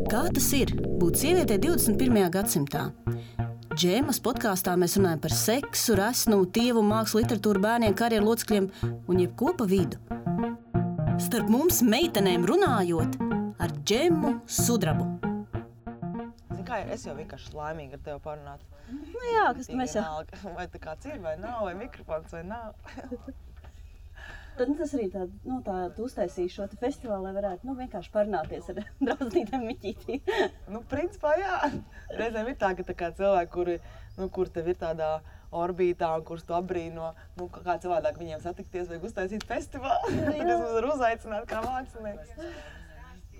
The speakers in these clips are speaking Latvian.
Kā tas ir būt sievietei 21. gadsimtā? Džēmas podkāstā mēs runājam par seksu, resnumu, tievumu, mākslu, literatūru, bērniem, karjeru locekļiem un jebko pa vidu. Starp mums meitenēm runājot ar Džemu Sudrabu. Kā es jau vienkārši laimīgi ar tevi parunāt. Nu jā, kas mēs jau... Vai tā kāds ir vai nav, vai mikrofons vai nav. Tad tas arī tā uztaisīja šo te festivālu, lai varētu vienkārši parunāties ar draudzītēm Miķītī. Principā jā. Reizēm ir tā, ka cilvēki, kur tev ir tādā orbītā un kurus tu apbrīno, kā cilvēdāk viņiem satikties, vajag uztaisīt festivālu. Tad es mums varu uzaicināt kā mākslinieks.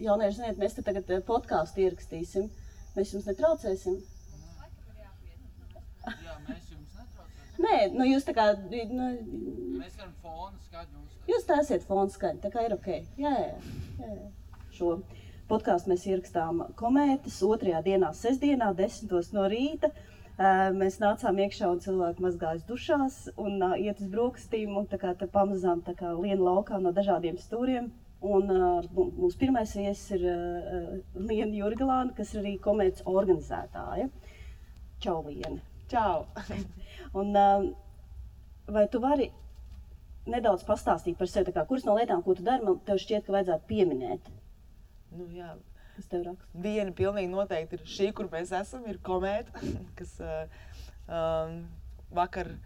Jaunieši, ziniet, mēs te tagad podkāstu ierakstīsim. Mēs jums netraucēsim? Jā, mēs jums netraucēsim. Nē, jūs tā kā... Mēs varam fonu skaļu uztaisīt. Jūs taisiet fonu skaļu, tā kā ir ok. Jā. Šo podkāstu mēs ierakstām Komētas 2. dienā, sestdienā, 10 no rīta. Mēs nācām iekšā un cilvēki mazgājas dušās un iet uz brokastīm un tā kā te pamazām tā kā lien laukā no dažādiem stūriem. Un mūsu pirmais viesis ir Liena Jurgelāne, kas ir arī Komētas organizētāja. Čau, Liene! Čau! Un vai tu vari nedaudz pastāstīt par sevi, kuras no lietām, ko tu dari, man tev šķiet, ka vajadzētu pieminēt? Jā. Kas tev raksta? Viena pilnīgi noteikti ir šī, kur mēs esam, ir Komēta, kas vakar...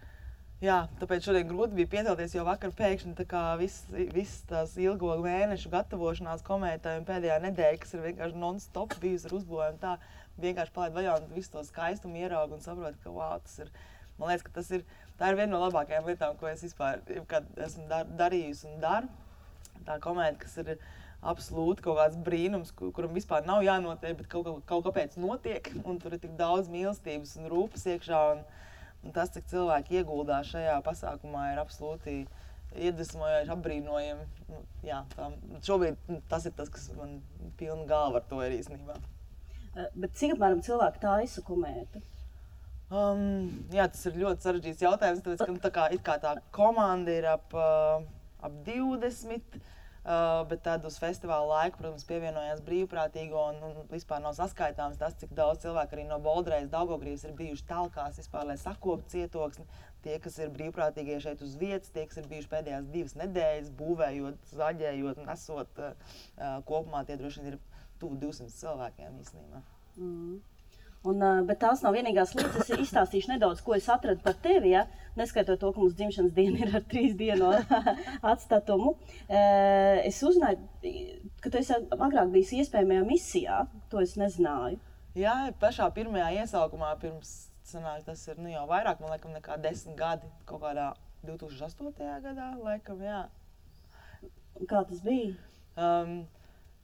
Jā, tāpēc šodien grūti bija piecelties, jo vakar pēkšņi tā kā viss tās ilgo mēnešu gatavošanās Komētai un pēdējā nedēļa, kas ir vienkārši non-stop bijusi ar uzbūvējumu, tā vienkārši palaid vaļā un visu to skaistumu ieraugu un saprotu, ka tas ir, man liekas, ka tā ir viena no labākajām lietām, ko es vispār esmu darījusi un daru. Tā Komēta, kas ir absolūti kaut kāds brīnums, kuram vispār nav jānotiek, bet kaut kāpēc notiek, un tur ir tik daudz mīlestības un rūpes iekšā. Un tas, cik cilvēki ieguldās šajā pasākumā, ir absolūti iedvesmojoši, apbrīnojami. Šobrīd tas ir tas, kas man pilna galva ar to ir īstenībā. Bet cik apmēram cilvēki taisa Komētu? Tas ir ļoti sarežģīts jautājums, tāpēc, ka tā komanda ir ap 20. Bet tad uz festivāla laiku, protams, pievienojās brīvprātīgo un vispār nav saskaitāms tas, cik daudz cilvēku arī no Boldrejas, Daugavgrības ir bijuši talkās vispār, lai sakoptu cietoksni. Tie, kas ir brīvprātīgie šeit uz vietas, tie, kas ir bijuši pēdējās 2 nedēļas, būvējot, zaļējot, nesot kopumā, tie droši vien ir tuvu 200 cilvēkiem īstenībā. Bet tās nav vienīgās lietas. Es izstāstīšu nedaudz, ko es atradu par tevi, ja? Neskaitot to, ka mums dzimšanas diena ir ar 3 dienu atstatumu. Es uzzināju, ka tu esi agrāk bijis iespējamajā misijā, to es nezināju. Jā, pašā pirmajā iesaukumā pirms, tas ir jau vairāk, man laikam, nekā 10 gadi, kaut kādā 2008. gadā, laikam, jā. Kā tas bija?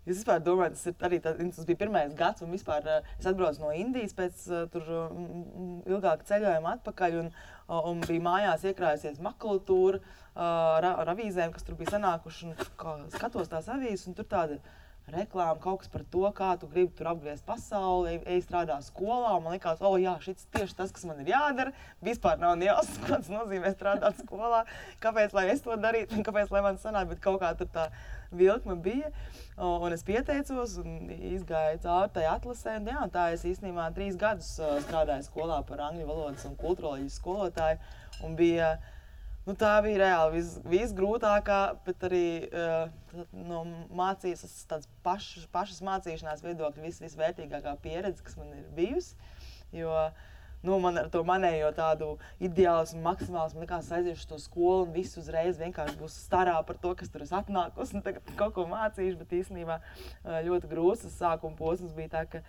Es vispār domāju, tas bija pirmais gads, un vispār es atbraucu no Indijas pēc tur ilgāka ceļojuma atpakaļ, un bija mājās iekrājusies makulatūra ar avīzēm, kas tur bija sanākuši, un skatos tās avīzes, un tur tāda reklāma, kaut kas par to, kā tu gribi tur apgriezt pasauli, ej strādā skolā, un man likās, šis tieši tas, kas man ir jādara, vispār nav jāsaka, ko tas nozīmē strādāt skolā, kāpēc, lai es to darītu, un kāpēc, lai man sanāk, bet kaut kā tur tā vilkme bija, un es pieteicos un izgāju cauri tai atlasē, un tā es īstenībā 3 gadus strādāju skolā par angļu valodas un kulturoloģijas skolotāju, un bija, tā bija reāli visgrūtākā, bet arī no mācības, tāds pašas mācīšanās viedokļa visvērtīgākā pieredze, kas man ir bijusi, jo man ar to manējo tādu ideālismu, maksimālismu likās aiziešu to skolu un viss uzreiz vienkārši būs starā par to, kas tur es atnākus un tagad kaut ko mācīšu, bet īstenībā ļoti grūts sākuma posms bija tā, ka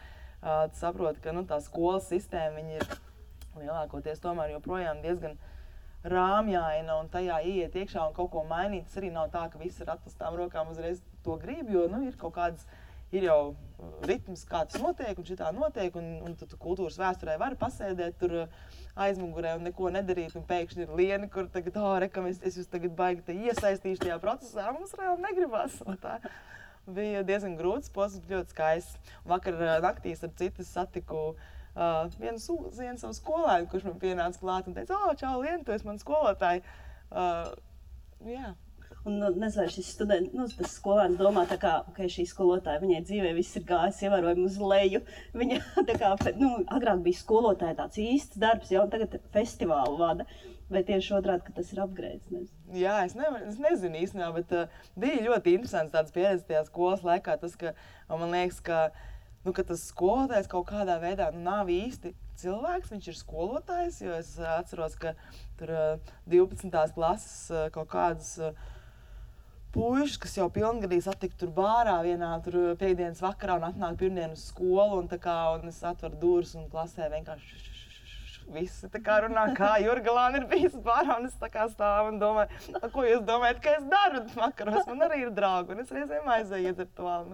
tu saproti, ka tā skolas sistēma, viņi ir lielākoties tomēr joprojām diezgan rāmjaina un tajā ieiet iekšā un kaut ko mainīt. Tas arī nav tā, ka viss ar atklātām rokām uzreiz to grib, jo ir kaut kādas, ir jau ritms, kā tas notiek un šitā notiek, un tu kultūras vēsturē vari pasēdēt tur aizmugurē un neko nedarīt, un pēkšņi ir Liena, kur tagad, es jūs tagad baigi iesaistīšu tajā procesā, mums reāli negribas. Tā bija diezgan grūts posms, ļoti skaists. Vakar naktī ar citu satiku vienu savu skolēnu, kurš man pienāca klāt un teica, čau, Liena, tu esi man skolotāji. Jā. nezinu, šis students, tas skolēns domā tā kā, šī skolotāja, viņai dzīvē viss ir gājis ievērojami uz leju. Viņa tā kā, agrāk bija skolotāja tāds īsts darbs, un tagad festivālu vada. Vai tieši otrādi, ka tas ir upgrades? Jā, es nezinu īstenībā, bet bija ļoti interesants tāds pieredze tajā skolas laikā. Tas, ka man liekas, ka tas skolotājs kaut kādā veidā nav īsti cilvēks, viņš ir skolotājs, jo es atceros, ka tur 12. klases kaut kādas puišas, kas jau pilngadīgi satika tur bārā vienā tur piektdienas vakarā un atnāk pirmdien uz skolu un es atveru durvis un klasē vienkārši visi tā kā runā, kā Jurgalāna ir bijis bārā, un es tā kā stāvu un domāju, ko jūs domājat, ka es daru vakaros, man arī ir draugi, un es reizēm aizēju iedzert to vēl,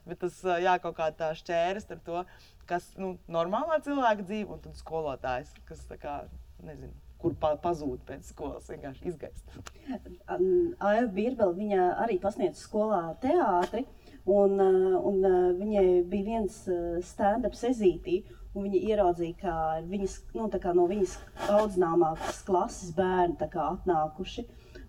bet tas, kaut kā tā šķēris ar to, kas, normālā cilvēka dzīve, un tad skolotājs, kas tā kā, nezinu, kur pazūd pēc skolas, vienkārši izgaist. Aiva Birbele, viņa arī pasniedz skolā teātri, un viņai bija viens stand-up sezītī, un viņa ieraudzīja, ka viņas, no viņas audzināmākas klases bērni atnākuši.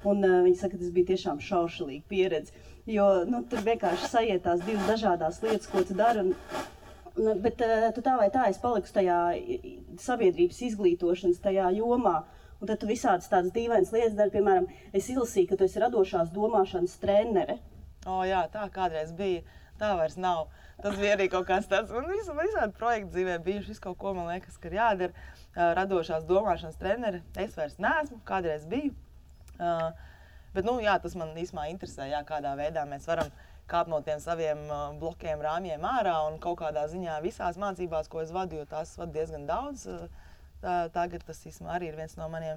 Un viņa saka, ka tas bija tiešām šaušalīga pieredze, jo tur vienkārši sajietās divas dažādās lietas, ko tu dari. Bet tu tā vai tā esi palikusi tajā sabiedrības izglītošanas tajā jomā. Un tad tu visādas tādas dīvainas lietas dari, piemēram, es izlasīju, ka tu esi radošās domāšanas trenere. Jā, tā kādreiz bija. Tā vairs nav. Tas bija arī kaut kāds tāds, man visādi projekti dzīvē bijuši, visu kaut ko, man liekas, ka ir jādara. Radošās domāšanas treneri, es vairs neesmu, kādreiz biju. Bet, tas man īsumā interesē, kādā veidā mēs varam kāpt no tiem saviem blokiem, rāmjiem ārā un kaut kādā ziņā visās mācībās, ko es vadu, jo tās vadu diezgan daudz. Tagad tas īsumā arī ir viens no maniem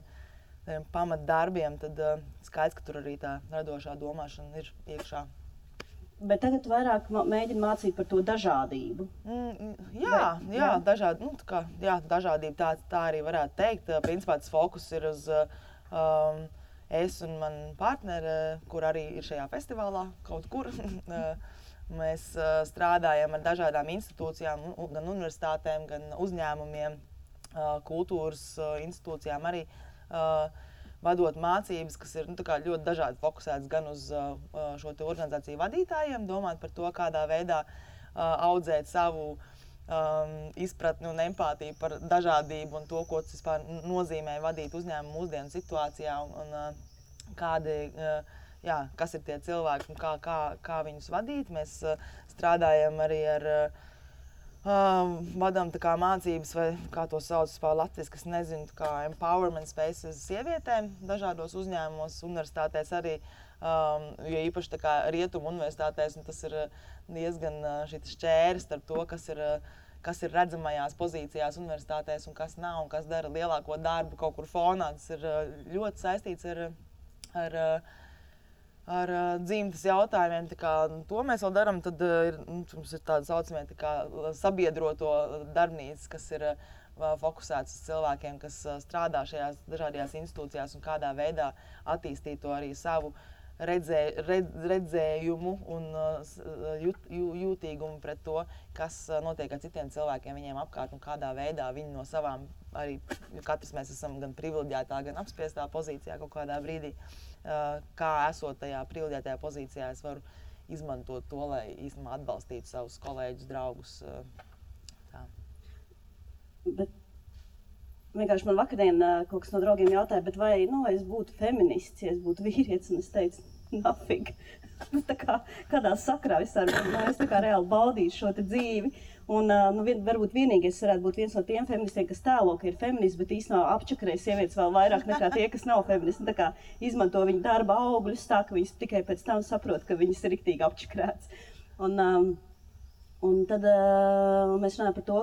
pamatdarbiem, tad skaidrs, ka tur arī tā radošā domāšana ir iekšā. Bet tagad vairāk mēģina mācīt par to dažādību. Dažādība, tā arī varētu teikt. Principā tas fokus ir uz es un man partneri, kur arī ir šajā festivālā kaut kur. Mēs strādājam ar dažādām institūcijām, gan universitātēm, gan uzņēmumiem, kultūras institūcijām arī. Vadot mācības, kas ir ļoti dažādi fokusētas gan uz šo te organizāciju vadītājiem, domāt par to, kādā veidā audzēt savu izpratni un empātiju par dažādību un to, ko tas vispār nozīmē vadīt uzņēmumu mūsdienu situācijā un kas ir tie cilvēki un kā viņus vadīt. Mēs strādājam arī ar vadām mācības, vai kā to sauc latviski, es nezinu, kā empowerment spaces sievietēm dažādos uzņēmumos, universitātēs arī, jo īpaši rietumu universitātēs, un tas ir diezgan šis šķēris ar to, kas ir redzamajās pozīcijās universitātēs un kas nav, un kas dara lielāko darbu kaut kur fonā. Tas ir ļoti saistīts ar dzimtas jautājumiem, to mēs vēl darām, tad mums ir tāda saucamie sabiedroto darbnīcas, kas ir fokusētas uz cilvēkiem, kas strādā šajās dažādajās institūcijās un kādā veidā attīstīt to arī savu redzējumu un jūtīgumu pret to, kas notiek ar citiem cilvēkiem viņiem apkārt un kādā veidā viņi no savām, arī katrs mēs esam gan privileģētā, gan apspiestā pozīcijā kaut kādā brīdī. Kā esot tajā privileģētajā pozīcijā, es varu izmantot to, lai īstenībā atbalstītu savus kolēģus, draugus. Tā. Bet vienkārši man vakardien kaut kas no draugiem jautāja, bet vai es būtu feminists, ja es būtu vīrietis, un es teicu, nafig. Kādā sakrā es reāli baudīšu šo te dzīvi. Un varbūt vienīgais varētu būt viens no tiem feministiem, kas tēlo, ka ir feminists, bet īstenībā apčakarē sievietes vēl vairāk nekā tie, kas nav feministi. Tā kā izmanto viņu darba augļus tā, ka viņas tikai pēc tam saprot, ka viņas ir riktīgi apčakarētas. Un tad mēs runājam par to,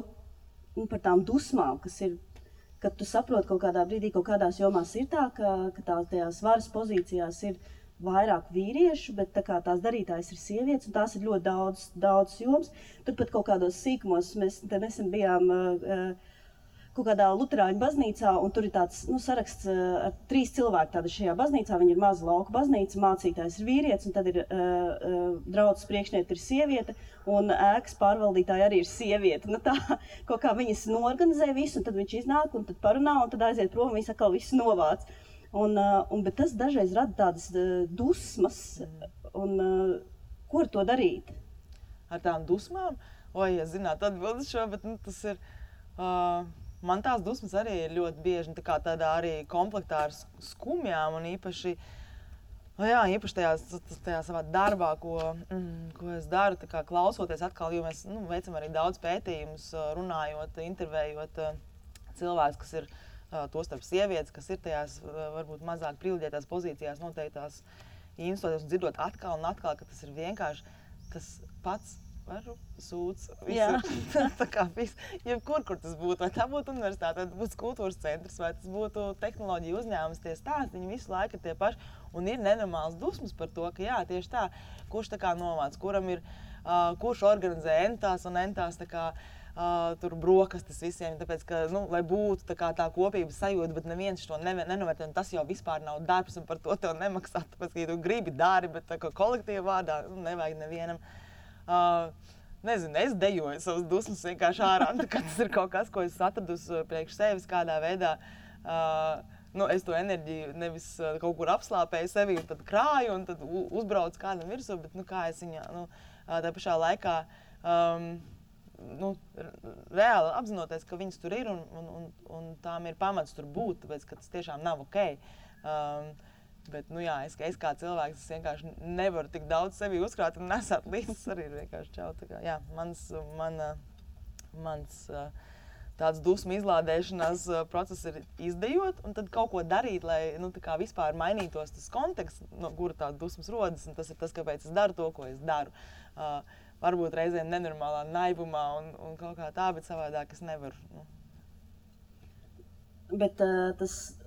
par tām dusmām, kas ir, kad tu saproti kaut kādā brīdī, kaut kādās jomās ir tā, ka tajās varas pozīcijās ir vairāk vīriešu, bet tās darītājas ir sievietes, un tās ir ļoti daudz jomas. Turpat kaut kādos sīkumos mēs nesen bijām kaut kādā luterāņu baznīcā, un tur ir tāds saraksts ar 3 cilvēki tāda šajā baznīcā. Viņi ir maza lauka baznīca, mācītājs ir vīrietis, un tad ir draudzes priekšniete ir sieviete, un ēkas pārvaldītāja arī ir sieviete. Tā kaut kā viņas norganizē visu, un tad viņš iznāk, un tad parunā, un tad aiziet prom, un viņas atkal visu novāc. Bet tas dažreiz rada tādas dusmas, un ko ar to darīt? Ar tām dusmām? Ja zinātu atbildi šo, bet tas ir... Man tās dusmas arī ir ļoti bieži, tā kā tādā arī komplektā ar skumjām, un īpaši tajā savā darbā, ko es daru, tā kā klausoties atkal, jo mēs veicam arī daudz pētījumus, runājot, intervējot cilvēkus, kas ir tostarp sievietes, kas ir tajās varbūt mazāk privileģētās pozīcijās, noteiktās institūcijās, un dzirdot atkal un atkal, ka tas ir vienkārši tas pats varu sūds. Tā kā viss, jebkur, kur tas būtu, vai tā būtu universitāte, vai tas būtu kultūras centrs, vai tas būtu tehnoloģija uzņēmums, tie stāsti, viņi visu laiku ir tie paši, un ir nenormāls dusmas par to, ka jā, tieši tā, kurš tā kā novāc, kuram ir, kurš organizē entās un entās tā kā tur brokastis visiem, tāpēc, ka, lai būtu tā kā tā kopības sajūta, bet neviens to nenovērtē, un tas jau vispār nav darbs, un par to tev nemaksā, tāpēc, ka ja tu gribi dari, bet tā kā kolektīva vārdā, nevajag nevienam. Nezinu, es dejoju savas dusmas vienkārši ārā, ka tas ir kaut kas, ko es atradusi priekš sevis kādā veidā. Es to enerģiju nevis kaut kur apslāpēju sevi un tad krāju un tad uzbraucu kādam virsū, bet kā es viņā, tā pašā laikā reāli apzinoties, ka viņas tur ir un tām ir pamats tur būt, tāpēc, ka tas tiešām nav ok. Bet, es kā cilvēks, es vienkārši nevaru tik daudz sevi uzkrāt un nesāt līdz arī ir vienkārši čau. Tā kā, mans tāds dusmu izlādēšanās process ir izdejot un tad kaut ko darīt, lai, tā kā vispār mainītos tas konteksts, no kura tā dusmas rodas, un tas ir tas, kāpēc es daru to, ko es daru. Varbūt reizēm nenormālā naivumā un kaut kā tā, bet savādāk es nevaru. Bet tas...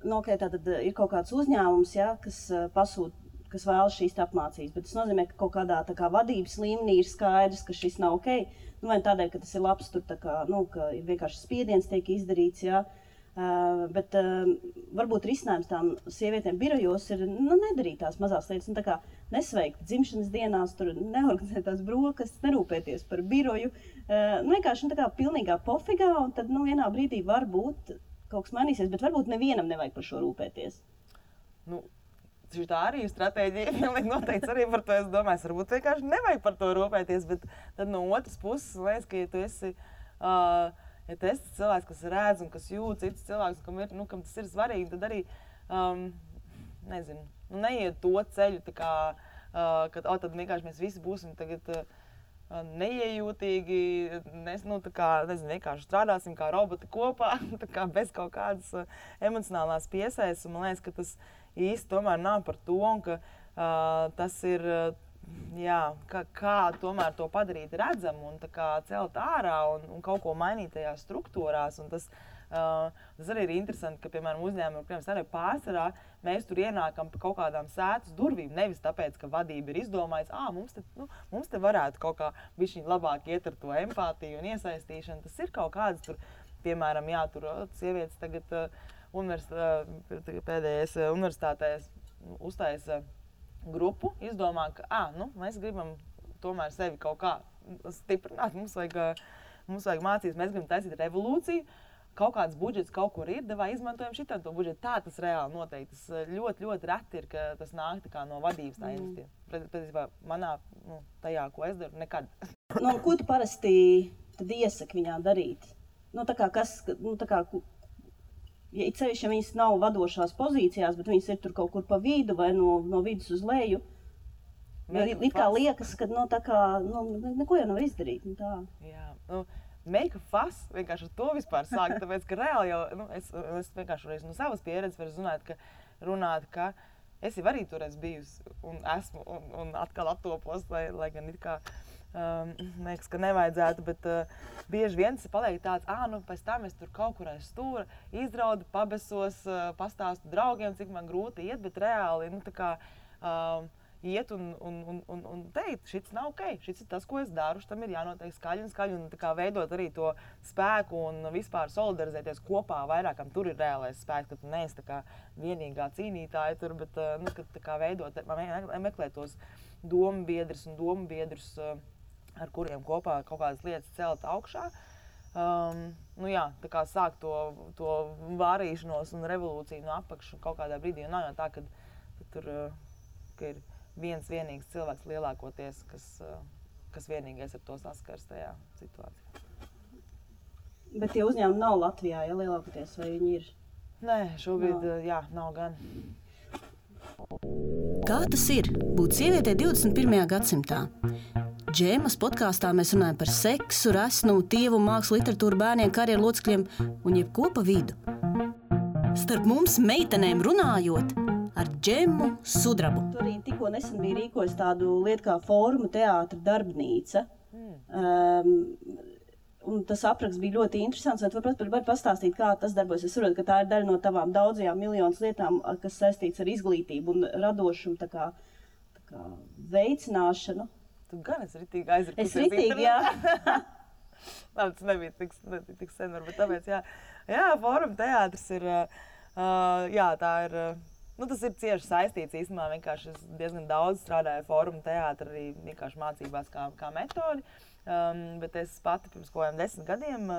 Tātad ir kaut kāds uzņēmums, kas pasūta, kas vēlas šīs apmācības, bet tas nozīmē, ka kaut kādā tā kā vadības līmenī ir skaidrs, ka šis nav ok. Vai tādēļ, ka tas ir labs, tur tā kā, ka vienkārši spiediens tiek izdarīts, bet varbūt risinājums tām sievietēm birojos ir nedarīt tās mazās lietas, tā kā nesveikt dzimšanas dienās, tur neorganizēt tās brokastis, nerūpēties par biroju, vienkārši tā kā pilnīgā pofigā, un tad vienā brīdī var būt kaut kas mainīsies, bet varbūt nevienam nevajag par šo rūpēties. Tā arī ir stratēģija, pilnīgi noteikti arī par to es domāju. Varbūt vienkārši nevajag par to rūpēties, bet tad no otras puses, liekas, ka ja tu esi cilvēks, kas redz un kas jūt cits cilvēks, kam tas ir svarīgi, tad arī, neiet to ceļu, tā kā, kad tad vienkārši mēs visi būsim tagad neiejūtīgi, vienkārši strādāsim kā roboti kopā, bez kaut kādas emocionālās piesaistes. Man liekas, ka tas īsti tomēr nav par to, un ka tas ir, kā tomēr to padarīt redzamu un celt ārā un kaut ko mainīt tajās struktūrās. Un tas arī ir interesanti, ka, piemēram, uzņēmumi, arī pārsvarā, mēs tur ienākam pa kaut kādām sētas durvīm, nevis tāpēc, ka vadība ir izdomājis, mums te varētu kaut kā bišķiņ labāk iet ar to empātiju un iesaistīšanu. Tas ir kaut kāds tur, piemēram, tur sievietes tagad pēdējais universitātēs uztaisa grupu, izdomā, ka mēs gribam tomēr sevi kaut kā stiprināt, mums vajag mācīties, mēs gribam taisīt revolūciju. Kaut kāds budžets kaut kur ir, vai izmantojam šitam to budžetu. Tā tas reāli noteikti. Tas ļoti, ļoti reti ir, ka tas nāk no vadības tā iniciatīva. Patiesībā manā, tajā, ko es daru, nekad. Ko tu parasti tad iesaki viņām darīt? Ja it sevišķi, ja viņas nav vadošās pozīcijās, bet viņas ir tur kaut kur pa vidu vai no vidus uz leju, it kā liekas, ka neko jau nav izdarīt. Jā, make a fuss, vienkārši ar to vispār sākt, tāpēc, ka reāli jau, es vienkārši no savas pieredzes varu runāt, ka es jau arī toreiz bijusi un esmu un atkal attopos, lai gan it kā, liekas, ka nevajadzētu, bet bieži vien tas paliek tāds, pēc tam es tur kaut kur aiz stūra izraudu, pabesos, pastāstu draugiem, cik man grūti iet, bet reāli, iet un teikt, šis nav ok, šis ir tas, ko es daru, šitam ir jānotiek skaļi un tā kā veidot arī to spēku un vispār solidarizēties kopā vairākam. Tur ir reālais spēks, ka tu neesi tā kā vienīgā cīnītāja tur, bet kad tā kā veidot, meklēt tos dombiedrus, ar kuriem kopā kaut kādas lietas celt augšā. nu jā, tā kā sāk to vārīšanos un revolūciju no apakšu kaut kādā brīdī. Nav jau tā, ka tur ka ir viens vienīgs cilvēks lielākoties, kas vienīgais ar to saskars tajā situācijā. Bet tie uzņēmumi nav Latvijā, ja lielākoties, vai viņi ir? Nē, šobrīd nav gan. Kā tas ir būt sievietei 21. gadsimtā? Džēmas podkāstā mēs runājam par seksu, resnumu, tievumu, mākslu, literatūru, bērniem, karjeru locekļiem un jebko pa vidu. Starp mums meitenēm runājot ar Džemu Sudrabu. Tur arī tikko nesen bija rīkojis tādu lietu kā Fóruma teātra darbnīca. Un tas apraksts bija ļoti interesants. Vai var pastāstīt, kā tas darbojas? Es saprotu, ka tā ir daļa no tavām daudzajām miljonas lietām, kas saistīts ar izglītību un radošumu, tā kā veicināšanu. Tu gan esi ritīgi aizrakusies. Es ritīgi, jā. Labi, tas nebija tik sen, varbūt tāpēc, jā. Jā, Fóruma teātris ir, jā, tā ir, nu tas ir cieši saistīts īstenībā, vienkārši es diezgan daudz strādāju Fóruma teātri, arī vienkārši mācībās kā metodi. Bet es pati pirms kaut kādiem 10 gadiem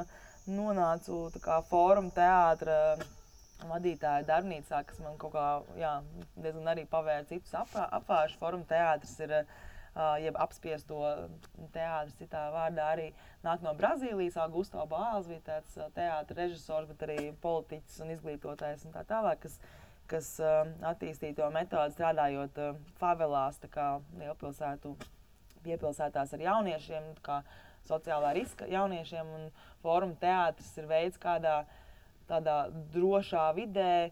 nonācu tā kā Fóruma teātra vadītāja darbnīcā, kas man kaut kā, jā, diezgan arī pavēra citus apvāršus. Fóruma teātris ir, jeb apspiesto teātris citā vārdā, arī nāk no Brazīlijas. Augusto Boals bija tāds teātra režisors, bet arī politiķis un izglītotājs un tā tālāk, kas attīstīja to metodi strādājot favelās, tā kā lielpilsētu piepilsētās ar jauniešiem, kā sociālā riska jauniešiem, un Fóruma teātris ir veids, kādā tādā drošā vidē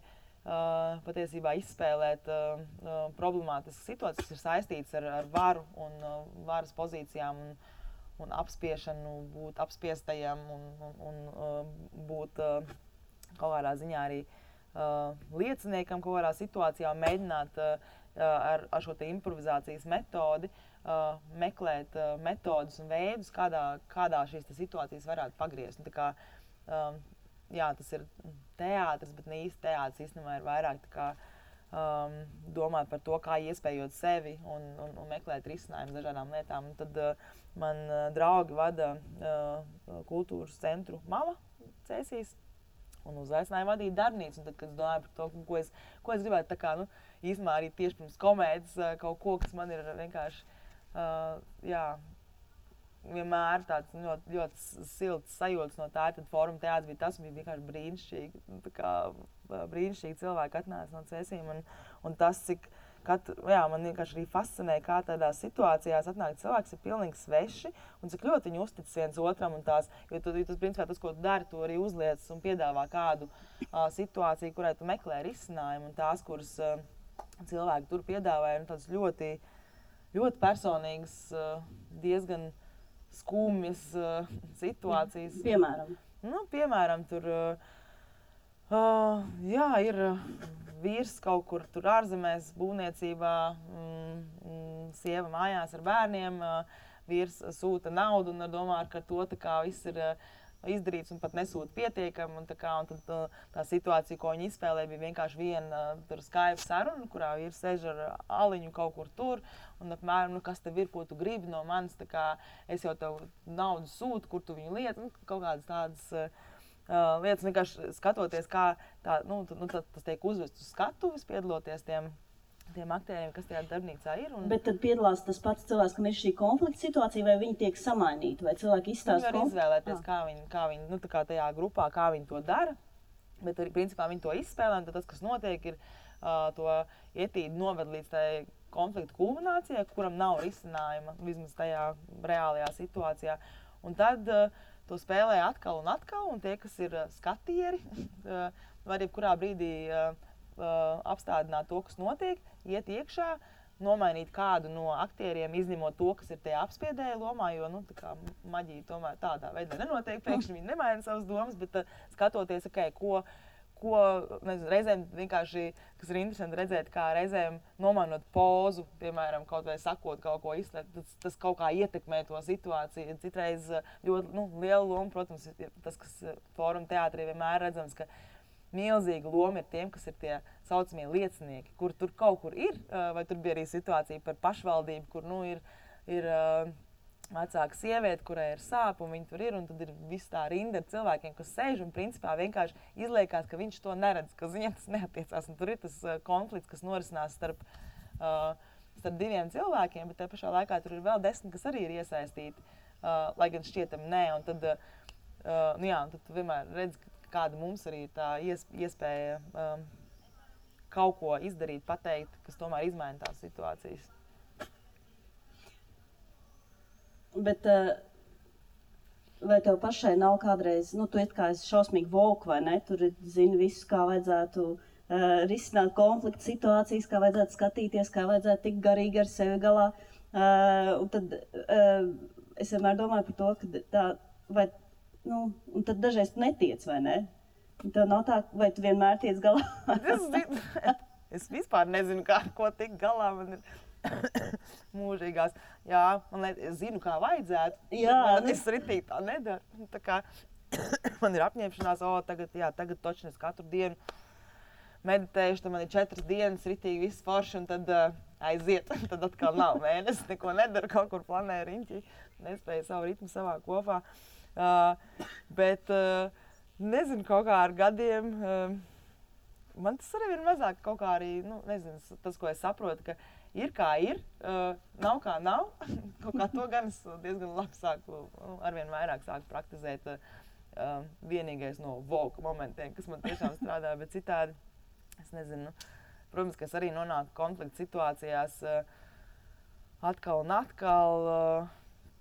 patiesībā izspēlēt problemātiskas situācijas, kas ir saistītas ar varu un varas pozīcijām un apspiešanu, būt apspiestajam un būt kaut kādā ziņā arī lieciniekam kaut kādā situācijā, mēģināt ar šo te improvizācijas metodi meklēt metodus un veidus, kādā šīs situācijas varētu pagriezt. Un tā kā, jā, tas ir teātris, bet ne īsti teātris īstenībā ir vairāk tā kā, domāt par to, kā iespējot sevi un meklēt risinājumus dažādām lietām. Un tad man draugi vada kultūras centru Mama Cēsīs un uzaicināja vadīt darbnīcu. Un tad, kad es domāju par to, ko es gribētu tā kā, nu, īstenībā arī tieši pirms komēdijas kaut ko, kas man ir vienkārši jā, vienmēr tāds ļoti silts sajūtas no tā, tad Fóruma teātris bija tas, bija vienkārši brīnišķīgi, tā kā brīnišķīgi cilvēki atnāca no Cēsīm, un tas, cik jā, man vienkārši arī fascinē, kā tādās situācijās atnāk cilvēks ir pilnīgi sveši, un cik ļoti viņi uztic viens otram, un tās, jo tas, principā, tas, ko tu dari, tu arī uzliec un piedāvā kādu situāciju, kurai tu meklē risinājumu, un tās, kuras cilvēki tur piedāvāja, un tādas ļoti personīgas, diezgan skumjas situācijas. Piemēram? Nu, piemēram, tur jā, ir vīrs kaut kur tur ārzemēs būvniecībā, sieva mājās ar bērniem, vīrs sūta naudu un domā, ka to tā kā viss ir izdarīts un pat nesūta pietiekami. Un tad tā situācija, ko viņi izspēlē, bija vienkārši viena Skype saruna, kurā vīrs sēž ar aliņu kaut kur tur. Un apmēram, nu, kas tev ir, ko tu gribi no manis, tā kā es jau tev naudu sūtu, kur tu viņu lieti. Nu, kaut kādas tādas lietas, vienkārši skatoties, kā tas tiek uzvests uz skatuves, piedaloties tiem aktieriem, kas tajā darbnīcā ir. Bet tad piedalās tas pats cilvēks, kam ir šī konflikta situācija, vai viņi tiek samainīti, vai cilvēki izstāsta konfliktu? Viņi var izvēlēties, kā viņi nu, tā kā tajā grupā, kā viņi to dara, bet arī, principā, viņi to izspēlē, un tad tas, kas notiek, ir to ietīdi noved līdz tai konflikta kulminācijai, kuram nav risinājuma, vismaz tajā reālajā situācijā. Un tad to spēlē atkal, un tie, kas ir skatieri, var jebkurā brīdī apstādināt to, kas notiek, iet iekšā, nomainīt kādu no aktieriem, izņemot to, kas ir tajā apspiedēja lomā, jo, nu, tā kā maģija tomēr tādā veidā nenotiek, pēkšņi viņi nemaina savas domas, bet skatoties, ko nezinu, reizēm vienkārši, kas ir interesanti redzēt, kā reizēm nomainot pozu, piemēram, kaut vai sakot kaut ko izslēgt, tas kaut kā ietekmē to situāciju. Citreiz ļoti liela loma, protams, ir tas, kas Fóruma teātrī vienmēr redzams, ka milzīga loma ir tiem, kas ir tie saucamie liecinieki, kur tur kaut kur ir, vai tur bija arī situācija par pašvaldību, kur, nu, ir vecāka sieviete, kurai ir sāp, un viņa tur ir, un tad ir viss tā rinda ar cilvēkiem, kas sēž, un principā vienkārši izliekās, ka viņš to neredz, ka viņam tas neatiecās, un tur ir tas konflikts, kas norisinās starp diviem cilvēkiem, bet te pašā laikā tur ir vēl 10, kas arī ir iesaistīti, lai gan šķietam nē, un tad, un tad tu vienmēr redz, kāda mums arī ir tā iespēja kaut ko izdarīt, pateikt, kas tomēr izmaina tās situācijas. Bet vai tev pašai nav kādreiz, tu it kā esi šausmīgi vogue, vai ne? Tur zini visu, kā vajadzētu risināt konfliktu situācijas, kā vajadzētu skatīties, kā vajadzētu tikt garīgi ar sevi galā. Un tad es vienmēr domāju par to, ka tā, vai, un tad dažreiz tu netiec, vai ne? Un tev nav tā, vai tu vienmēr tiec galā? Es vispār nezinu, ko tikt galā, man ir mūžīgās. Jā, es zinu, kā vajadzētu. Es ritīgi tā nedaru. Tā kā man ir apņemšanās, tagad točni es katru dienu meditējuši, tad man ir 4 dienas ritīgi viss forši, un tad aiziet. Tad atkal nav mēnesis, neko nedaru, kaut kur planēju riņķi, nespēju savu ritmu savā kopā. Bet nezinu, kaut kā ar gadiem, man tas arī ir mazāk kaut kā arī, nezinu, tas, ko es saprotu, ka ir kā ir, nav kā nav. Kaut kā to gan es diezgan labi sāku, arvien vairāk sāku praktizēt. Vienīgais no vogue momentiem, kas man tiešām strādā, bet citādi, es nezinu. Protams, ka es arī nonāku konflikta situācijās atkal un atkal.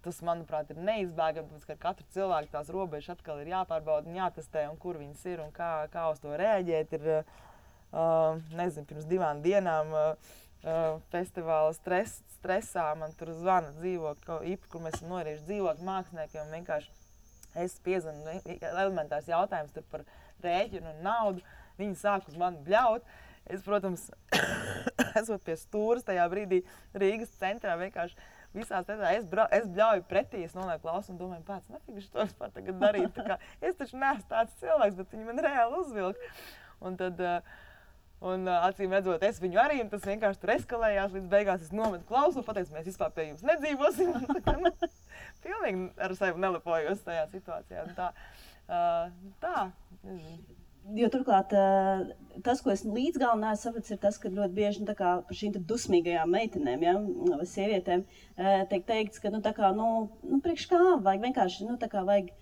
Tas, manuprāt, ir neizbēgami, tāpēc, ka ar katru cilvēku tās robežas atkal ir jāpārbauda un jātestē, un kur viņas ir un kā uz to rēģēt. Ir, nezinu, pirms 2 dienām festivāla stresā man tur zvana dzīvokļi, kur mēs esam norījuši dzīvokļu māksliniekiem, un vienkārši es piezvanu elementārs jautājums tur par rēķinu un naudu. Viņi sāk uz mani bļaut. Es, protams, esot pie stūras tajā brīdī Rīgas centrā, vienkārši visās es bļauju pretī, es nolieku klausu un domāju, pēc, nefīgi to vispār tagad darīt. Tā kā, es taču neesmu tāds cilvēks, bet viņi man reāli uzvilka. Un tad, acīm redzot, es viņu arī, un tas vienkārši tur eskalējās, līdz beigās es nometu klausu, pateicu, mēs vispār pie jums nedzīvosim. Pilnīgi ar sevi nelepojos tajā situācijā. Tā, nezinu. Jo turklāt tas, ko es līdz galam neesmu sapratis, ir tas, ka ļoti bieži par šīm dusmīgajām meitenēm, vai sievietēm, tiek teikts, ka priekš kā vajag vienkārši, vajag,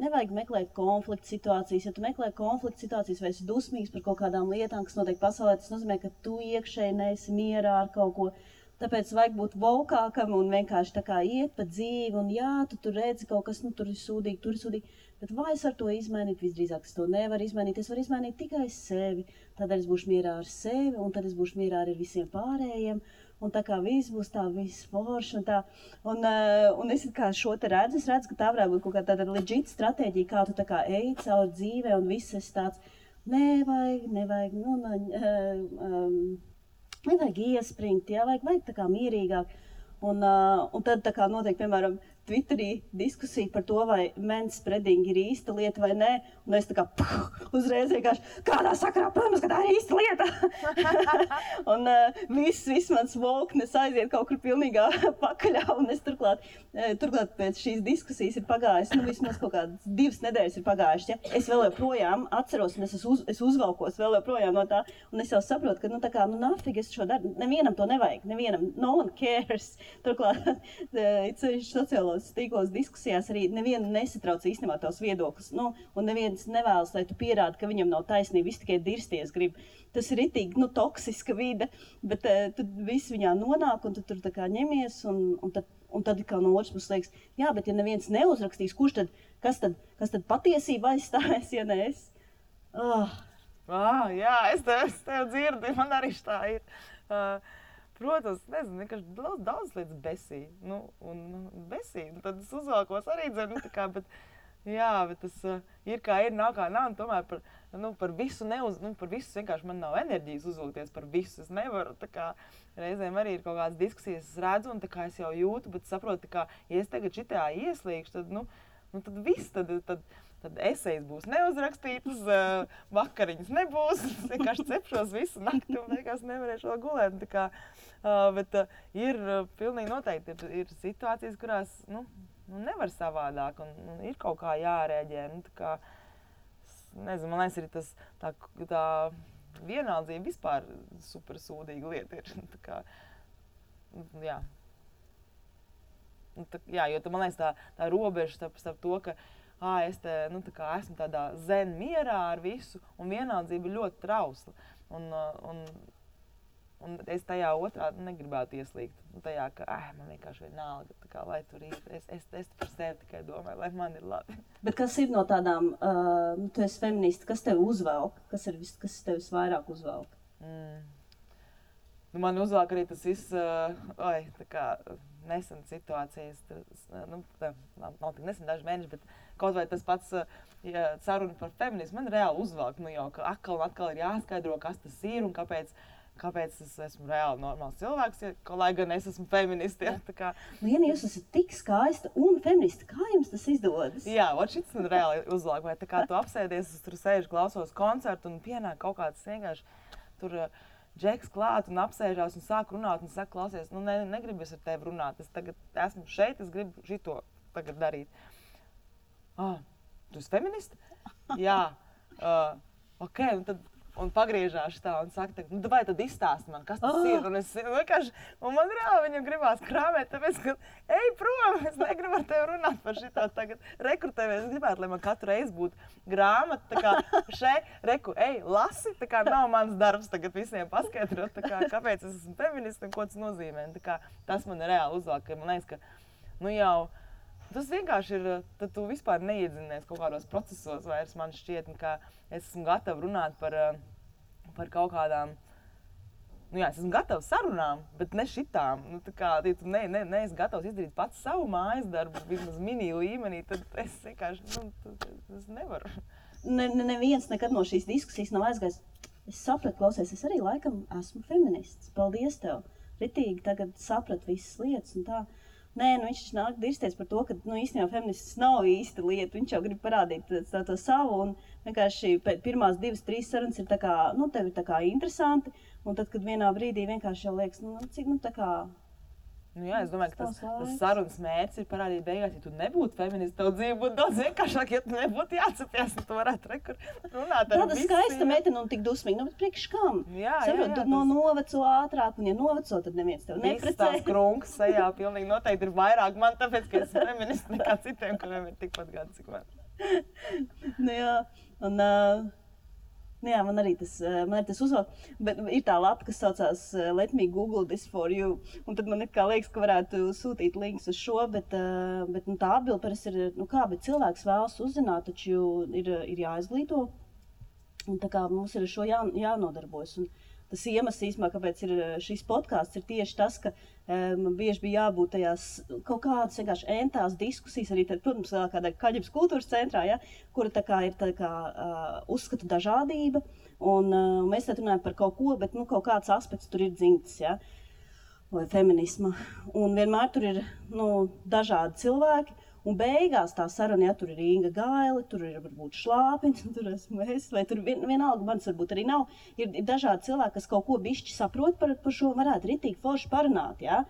nevajag meklēt konfliktu situācijas. Ja tu meklē konfliktu situācijas vai esi dusmīgs par kaut kādām lietām, kas notiek pasaulē, tas nozīmē, ka tu iekšēji neesi mierā ar kaut ko. Tāpēc vajag būt vokākam un vienkārši tā kā iet pa dzīvi, un jā, tu tur redzi kaut kas, tur ir sūdīgi, bet vai es varu to izmainīt? Visdrīzāk es to nevaru izmainīt, es varu izmainīt tikai sevi, tādēļ es būšu mierā ar sevi, un tad es būšu mierā ar visiem pārējiem, un tā kā viss būs tā, viss forši, un tā, un es kā šo te redzu, ka tā varētu būt kaut kā tāda legit stratēģija, kā tu tā kā eji caur dzīvē, un viss esi tāds, nevajag, nevajag iespringt, vajag tā kā mierīgāk. Un tad tā kā notiek, piemēram, Twitterī diskusija par to, vai manspreading ir īsta lieta vai nē, un es tā kā uzreiz vienkārši kādā sakarā, protams, ka tā ir īsta lieta. Un viss mans voknes aiziet kaut kur pilnīgā pakaļā, un es turklāt pēc šīs diskusijas ir pagājis, vismaz kaut kādas 2 nedēļas ir pagājušas, ja? Es vēl joprojām atceros, un es uzvalkos vēl joprojām no tā, un es jau saprotu, ka, tā kā, nafīgi es šo daru, nevienam to nevajag, nevienam, no one cares. Turklāt, sociālos tīklos diskusijās arī nevienu nesatrauc īstenībā tavs viedoklis, un neviens nevēlas, lai tu pierādi, ka viņam nav taisnība, viss tikai dirsties grib. Tas ir ritīgi, toksiska vide, bet tad viss viņā nonāk, un tu tur tā kā ņemies, un tad kā no otras puses liekas, jā, bet ja neviens neuzrakstīs, kas tad patiesība aizstāvēs, ja ne es? Jā, es tev dzirdu, man arī tā ir. Protams, nezinu, vienkārši daudz lietas besī. Besī. Tad es uzvalkos arī dzirdu, bet tas ir kā ir, nav kā nav. Un tomēr par visu vienkārši man nav enerģijas uzvilkties par visu. Es nevaru, reizēm arī ir kaut kādas diskusijas, es redzu, un es jau jūtu, bet saprotu, ja es tagad šitā ieslīgšu, tad viss, tad tad esejas būs neuzrakstītas, vakariņas nebūs, es vienkārši cepšos visu nakti un beigās nevarēšu vēl gulēt. Tā kā, bet ir pilnīgi noteikti ir situācijas, kurās nevar savādāk un ir kaut kā jārēģē. Tā kā, nezinu, man liekas, arī tas tā vienaldzība vispār super sūdīga lieta ir. Tā kā, jā. Jā, jo man liekas tā robeža starp to, ka es tā kā esmu tādā zen mierā ar visu, un vienaldzība ir ļoti trausla. Un es tajā otrā negribētu ieslīgt. Tajā, ka man vienkārši vienalga, tā kā, lai tur ir. Es par sevi tikai domāju, lai man ir labi. Bet kas ir no tādām, tu esi feminista, kas tev uzvelk? Kas tev visvairāk uzvelk? Man uzvelk arī tas viss, tā kā nesen situācijas, nav tik nesen daži mēneši, bet kaut vai tas pats saruna par feminismu, man reāli uzvelk, jau, ka atkal ir jāskaidro, kas tas ir un kāpēc es esmu reāli normāls cilvēks, lai gan es esmu feministi. Ja, tā kā. Liena, jūs esat tik skaista un feministi. Kā jums tas izdodas? Jā, šis man reāli uzvelk. Vai tā kā tu apsēdies, es tur sēžu, klausos koncertu un pienāk kaut kāds vienkārši tur džeks klāt un apsēžās un sāk runāt un saka, klausies, negribu es ar tevi runāt. Es tagad esmu šeit, es gribu šito tagad darīt. Tu esi feministi? Jā. Ok, un tad un pagriežās tā un saka, vai tad izstāsti man, kas tas ir? Un es vienkārši, un man reāli viņam gribās krāmēt, tāpēc, ka ej prom, es negribu ar tevi runāt par šitā tagad rekrutēties. Es gribētu, lai man katru reizi būtu grāmata, tā kā ej, lasi, tā kā nav mans darbs tagad visiem paskaidrot, tā kā kāpēc es esmu feministi un ko tas nozīmē. Tā kā tas man reāli uzvelk, ka man liekas, ka, tas vienkārši ir, tad tu vispār neiedzinies kaut kādos procesos vairs, man šķiet, ka es esmu gatava runāt par kaut kādām, es esmu gatava sarunām, bet ne šitām. Tā kā, ja tu neesi gatavs izdarīt pats savu mājas darbu, vismaz mini līmenī, tad es vienkārši, es nevaru. Neviens nekad no šīs diskusijas nav aizgājis. Es sapratu, klausies, es arī laikam esmu feminists. Paldies tev. Ritīgi tagad saprat visas lietas un tā. Nē, viņš nāk dirsties par to, ka īstenībā feminists nav īsta lieta. Viņš jau grib parādīt to savu, un vienkārši pirmās 2-3 sarunas ir tā kā, tev ir tā kā interesanti, un tad, kad vienā brīdī vienkārši jau liekas, cik, tā kā... Jā, es domāju, ka tas sarunas mērķis ir parādīt beigās, ja tu nebūtu feminists, tev dzīve būtu daudz vienkāršāk, ja tu nebūtu jācepies, un tu varētu runāt ar tāda skaista meitene un tik dusmīga, bet priekš kam? Jā, tu noveco ātrāk, un ja noveco, tad neviens tev neprecē. Viss tās krunkas sajā pilnīgi noteikti ir vairāk man, tāpēc, ka es feminists nekā citiem, kuriem ir tikpat gadi, cik man. Jā, man arī tas uzvelk, bet ir tā lapa, kas saucās Let me Google this for you, un tad man liekas, ka varētu sūtīt links uz šo, bet tā atbilde parasti ir, bet cilvēks vēlas uzzināt, taču ir jāizglīto, un tā kā mums ir ar šo jānodarbojas. Un tas iemesls īstenībā, kāpēc ir šis podcasts, ir tieši tas, ka man bieži bija jābūt tajās kaut kādas vienkārši entās diskusijas, arī tad, protams, kādā Kaļģības kultūras centrā, ja, kura tā kā ir tā kā uzskata dažādība, un mēs tad runājam par kaut ko, bet kaut kāds aspekts tur ir dzimts, ja, vai feminisma, un vienmēr tur ir dažādi cilvēki. Un beigās tā saruna, ja tur ir Inga Gaile, tur ir varbūt Šlāpins, tur esmu es, vai tur vienalga, manis varbūt arī nav. Ir dažādi cilvēki, kas kaut ko bišķi saprot par šo, varētu ritīgi forši parunāt, ja?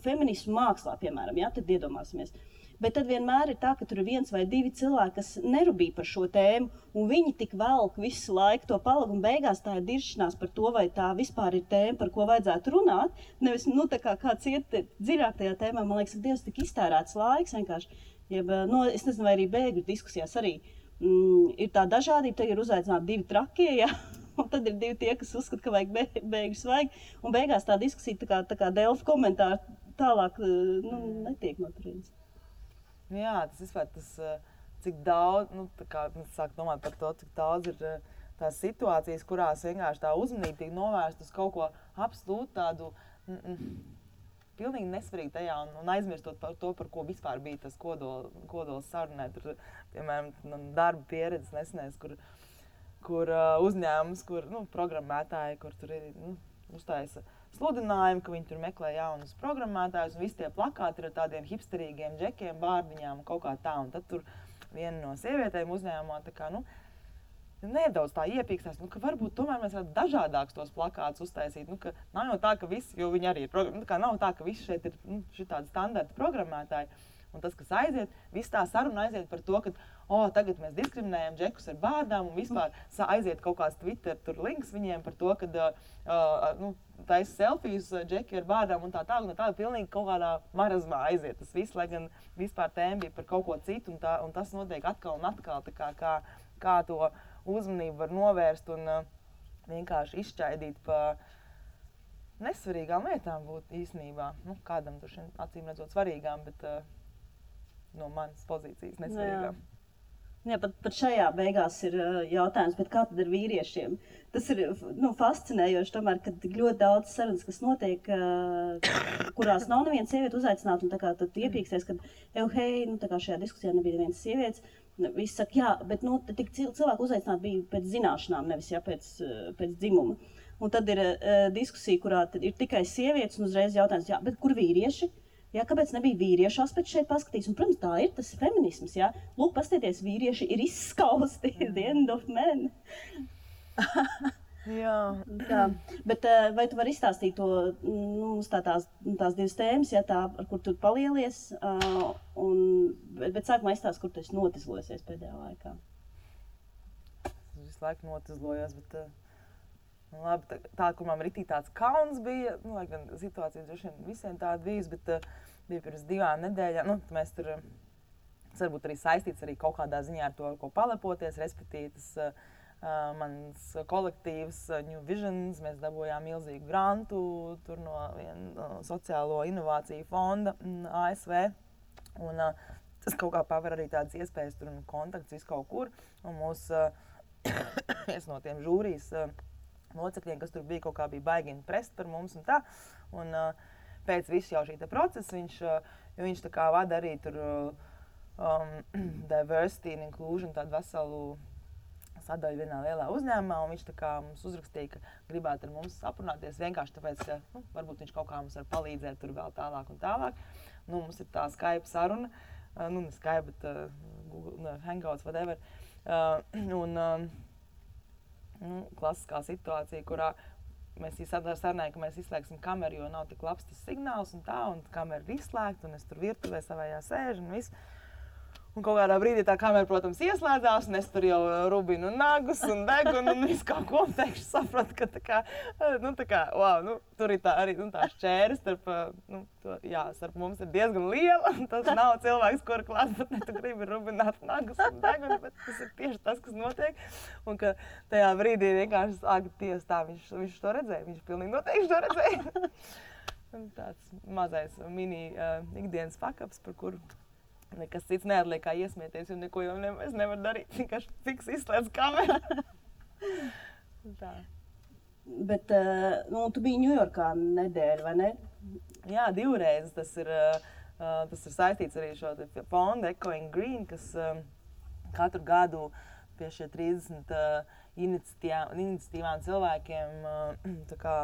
Feminismu mākslā, piemēram, ja? Tad iedomāsimies. Bet tad vienmēr ir tā, ka tur ir 1 vai 2 cilvēki, kas nerubīja par šo tēmu, un viņi tik velk visu laiku to palagu, un beigās tā ir diršanās par to, vai tā vispār ir tēma, par ko vajadzētu runāt. Nevis, tā kā kāds iet dziļāk tajā tēmā, man liekas, ka Dievs tik iztērēts laiks vienkārši. Es nezinu, vai arī bēgļu diskusijās arī ir tā dažādība, tad ir uzaicināti 2 trakie, ja? Un tad ir 2 tie, kas uzskata, ka vajag bēgļus vajag, un beigās tā diskusija tā kā Delfa komentāri tālāk netiek noturīts. Jā, tas vispār cik daudz, tā kā es sāku domāt par to, cik daudz ir tās situācijas, kurās vienkārši tā uzmanība tiek novērsta uz kaut ko absolūti tādu pilnīgi nesvarīgi tajā un aizmirstot par to, par ko vispār bija tas kodols sarunē. Tur, piemēram, darba pieredzes nesenēs, kur uzņēmums, kur programmētāji, kur tur ir uztaisa sludinājumu, ka viņi tur meklē jaunus programmētājus, un visi tie plakāti ir ar tādiem hipsterīgiem džekiem, bārdiņām, kaut kā tā, un tad tur viena no sievietēm uzņēmumā tā kā, nedaudz tā iepīkstās, ka varbūt tomēr mēs varētu dažādākus tos plakātus uztaisīt, ka nav jau tā, ka visi, jo viņi arī ir, nav tā, ka visi šeit ir šitādi standarta programmētāji, un tas, kas aiziet, viss tā saruna aiziet par to, ka tagad mēs diskriminējam džekus ar bārdām, un vispār aiziet kaut kāds Twitter tur links viņiem par to, ka taisa selfijas džeki ar bārdām un tā pilnīgi kaut kādā marazmā aiziet. Tas viss, lai gan vispār tēma bija par kaut ko citu, un tas notiek atkal un atkal, kā to uzmanību var novērst un vienkārši izšķaidīt pa nesvarīgām lietām būt īstenībā. Kādam tur šiem acīm redzot svarīgām, bet no manas pozīcijas nesvarīgām. Jā, pat šajā beigās ir jautājums, bet kā tad ar vīriešiem? Tas ir fascinējoši tomēr, kad ļoti daudz sarunas, kas notiek, kurās nav neviena sieviete uzaicināta, un tā kā tad iepīksties, kad tā kā šajā diskusijā nebija nevienas sievietes, visi saka, jā, bet tik cilvēku uzaicināt bija pēc zināšanām, nevis pēc dzimuma. Un tad ir diskusija, kurā ir tikai sievietes, un uzreiz jautājums, jā, bet kur vīrieši? Jā, kāpēc nebija vīriešu aspekts šeit paskatīs? Un, protams, tā ir, tas ir feminisms, jā. Lūk, pastieties, vīrieši ir izskausti, the end of men. Jā. Tā. Bet vai tu vari izstāstīt to, tās divas tēmas, ja tā, ar kur tu palielies, bet sākumā izstāst, kur tu esi notizlojusies pēdējā laikā? Es visu laiku notizlojos, bet labi, tā, kur man ritī tāds kauns bija, lai gan situācija droši vien visiem tāda bijis, bet bija pirms 2 nedēļām, mēs tur, tas varbūt arī saistīts arī kaut kādā ziņā ar to, ar ko palepoties, respektīvi tas mans kolektīvs New Visions, mēs dabūjām milzīgu grantu tur no viena sociālo inovāciju fonda ASV, un tas kaut kā paver arī tādas iespējas tur un kontakts visu kaut kur, un mūs viens no tiem žūrijas locekļiem, kas tur bija, kaut kā bija baigi imprest par mums un tā. Un pēc visu jau šī procesa viņš tā kā vada arī tur diversity and inclusion, tādu veselu sadaļu vienā lielā uzņēmumā, un viņš tā kā mums uzrakstīja, ka gribētu ar mums aprunāties vienkārši tāpēc, ka varbūt viņš kaut kā mums var palīdzēt tur vēl tālāk un tālāk. Mums ir tā Skype saruna, ne Skype, bet Google, Hangouts, whatever. Klasiskā situācija, kurā mēs sarunājam, ka mēs izslēgsim kameru, jo nav tik labs tas signāls un tā, un kamera ir izslēgta, un es tur virtuvē savējā sēžu un viss. Un kaut kādā brīdī tā kamera, protams, ieslēdzās, un es tur jau rubinu nagus un degunu un visu kaut ko pēkšņi sapratu, ka tur ir tā arī tā šķēra starp mums ir diezgan liela, un tas nav cilvēks, kura klātbūtnē tu gribi rubināt nagus un degunu, bet tas ir tieši tas, kas notiek. Un ka tajā brīdī vienkārši Dievs tā, viņš to redzēja, viņš pilnīgi noteikti to redzēja. Un tāds mazais mini ikdienas fuck-ups, par kuru nekas cits neatliek kā iesmieties, jo neko jau es nevaru darīt, vienkārši fiks izslēdz kameru. Tā. Bet, tu biji Ņujorkā nedēļu, vai ne? Jā, 2 reizes. Tas ir saistīts arī šo fondu Echoing Green, kas katru gadu pie šie 30 iniciatīvām cilvēkiem tā kā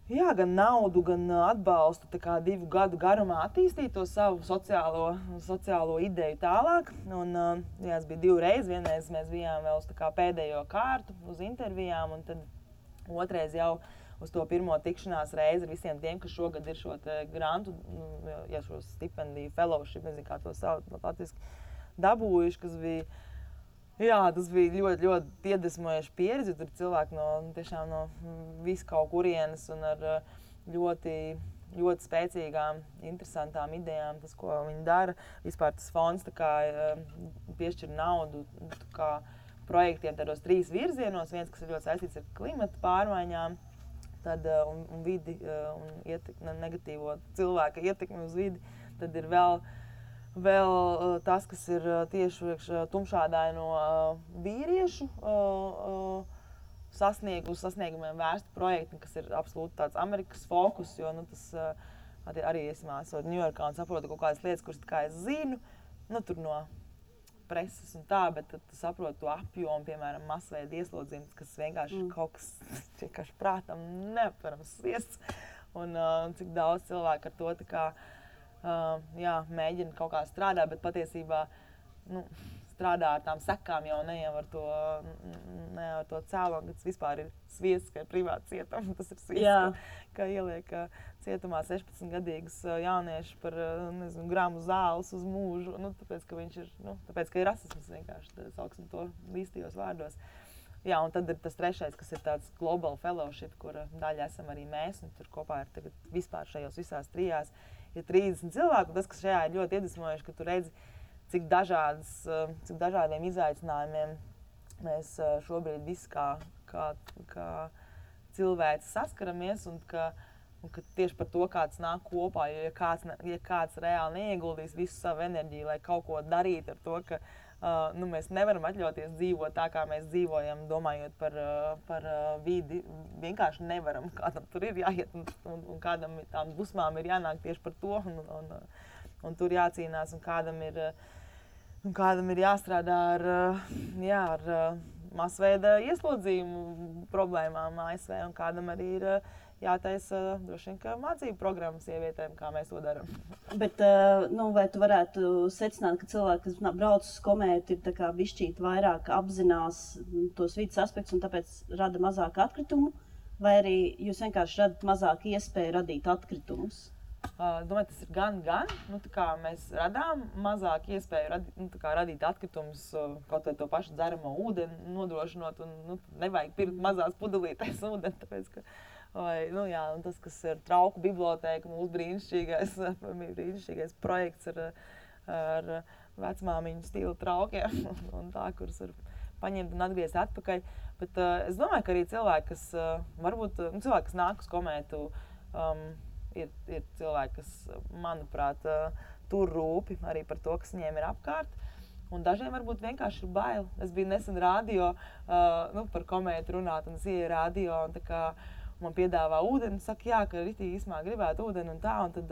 gan naudu, gan atbalstu 2 gadu garumā attīstīt to savu sociālo ideju tālāk. Un, es biju 2 reizes. Vienreiz mēs bijām vēl uz pēdējo kārtu uz intervijām, un tad otrais jau uz to pirmo tikšanās reizi ar visiem tiem, kas šogad ir šo grantu, šo stipendiju, fellowship, nezinu, kā to sauc latviski, dabūjuši, kas bija. Jā, tas bija ļoti, ļoti iedvesmojoši pieredze, jo tur cilvēki tiešām no visu kaut kurienes un ar ļoti, ļoti spēcīgām, interesantām idejām, tas, ko viņi dara. Vispār tas fonds piešķir naudu projektiem tādos 3 virzienos, viens, kas ir ļoti saistīts ar klimata pārmaiņām, tad, un vidi un negatīvo cilvēka ietekmi uz vidi, tad ir vēl tas, kas ir tieši tumšādaino vīriešu sasniegumiem vērsti projekti, kas ir absolūti tāds Amerikas fokus, jo tas arī esot Ņujorkā un saprotu kaut kādas lietas, kuras es zinu, tur no preses un tā, bet tad tu saproti to apjomu, piemēram, masveida ieslodzījums, kas vienkārši kaut kas vienkārši prātam neaptverams sviests. Un cik daudz cilvēku ar to tā kā, mēģina kaut kā strādāt, bet patiesībā, strādā ar tām sekām jau ne jau ar to cēloni, kas vispār ir sviests, ka ir privāti cietumi. Tas ir sviests, ka ieliek cietumā 16-gadīgus jauniešus par, gramu zāles uz mūžu, tāpēc, ka viņš ir, tāpēc, ka ir rasisms vienkārši, sauksim to līstajos vārdos. Jā, un tad ir tas trešais, kas ir tāds global fellowship, kura daļa esam arī mēs, un tur kopā ir tagad vispār šajos visās trijās ir 30 cilvēku, un tas, kas šajā ir ļoti iedvesmojoši, ka tu redzi, cik dažādiem izaicinājumiem mēs šobrīd visi kā cilvēci saskaramies, un ka tieši par to kāds nāk kopā, ja kāds reāli neieguldīs visu savu enerģiju, lai kaut ko darītu ar to, ka mēs nevaram atļauties dzīvot tā, kā mēs dzīvojam, domājot par vidi. Vienkārši nevaram, kādam tur ir jāiet, un kādam tām dusmām ir jānāk tieši par to, un tur jācīnās, un kādam ir jāstrādā ar masveida ieslodzījumu problēmām ASV, un kādam arī ir jātaisa droši vien, ka mācību programmas sievietēm, kā mēs to darām. Bet, vai tu varētu secināt, ka cilvēki, kas brauc uz komētu, ir tā kā bišķīt vairāk apzinās tos vidas aspektus un tāpēc rada mazāk atkritumu, vai arī jūs vienkārši radat mazāk iespēju radīt atkritumus? Domāju, tas ir gan. Tā kā mēs radām mazāk iespēju radīt atkritumus, kaut vai to pašu dzeramo ūdeni nodrošinot, un nevajag pirkt mazās pudelītēs ūdeni, tāpēc, ka un tas, kas ir trauku bibliotēka, mūsu brīnišķīgais projekts ar vecmāmiņu stila traukiem, un tā, kurus var paņemt un atgriezt atpakaļ. Bet es domāju, ka arī cilvēki, kas nāk uz komētu, ir cilvēki, kas, manuprāt, tur rūpi arī par to, kas viņiem ir apkārt. Un dažiem varbūt vienkārši ir bail. Es biju nesen radio par komētu runāt, un es ieju radio, un tā kā man piedāvā ūdeni, saka, ka ritīgi īsmā gribētu ūdeni un tā, un tad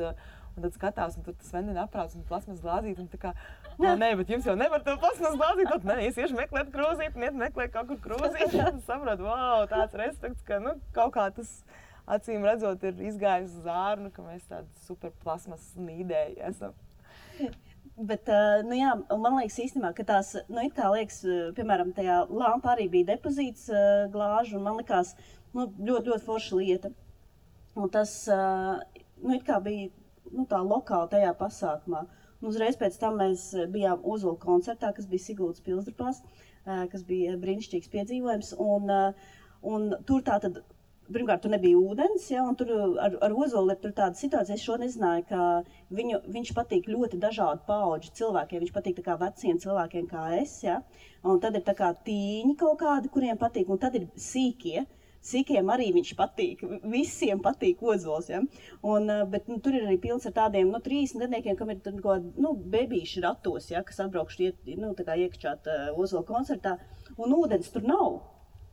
skatās, un tur tas vendina aprāts un plasmas glāzīt, un tā kā, nē, bet jums jau nevar to plasmas glāzīt, tad nē, es iešu meklēt krūzīt, un iet meklēt kaut kur krūzīt, un saprotu, tāds respekts, ka, kaut kā tas acīm redzot ir izgājis uz ārnu, ka mēs tādi super plasmas nīdēji esam. Bet, man liekas īstenībā, ka tās, it kā liekas, piemēram, tajā lampa arī bija depozīts glāžu, un man likās, ļoti forša lieta. Un tas, it kā bija, tā lokāli tajā pasākumā. Un uzreiz pēc tam mēs bijām Ozola koncertā, kas bija Siguldas Pilsdrupās, kas bija brīnišķīgs piedzīvojums, un tur tātad, pirmkārt, tur nebija ūdens, un tur ar Ozolu ir tur tāda situācija, es šo nezināju, ka viņš patīk ļoti dažādu paudžu cilvēkiem, viņš patīk tā kā veciem cilvēkiem kā es, un tad ir tā kā tīņi kaut kādi, kuriem patīk, un tad ir sīkie. Sīkiem arī viņš patīk, visiem patīk Ozols, bet tur ir arī pilns ar tādiem 30 gadniekiem, kam ir bebīši ratos, kas atbraukšu iekšķāt Ozola koncertā, un ūdens tur nav.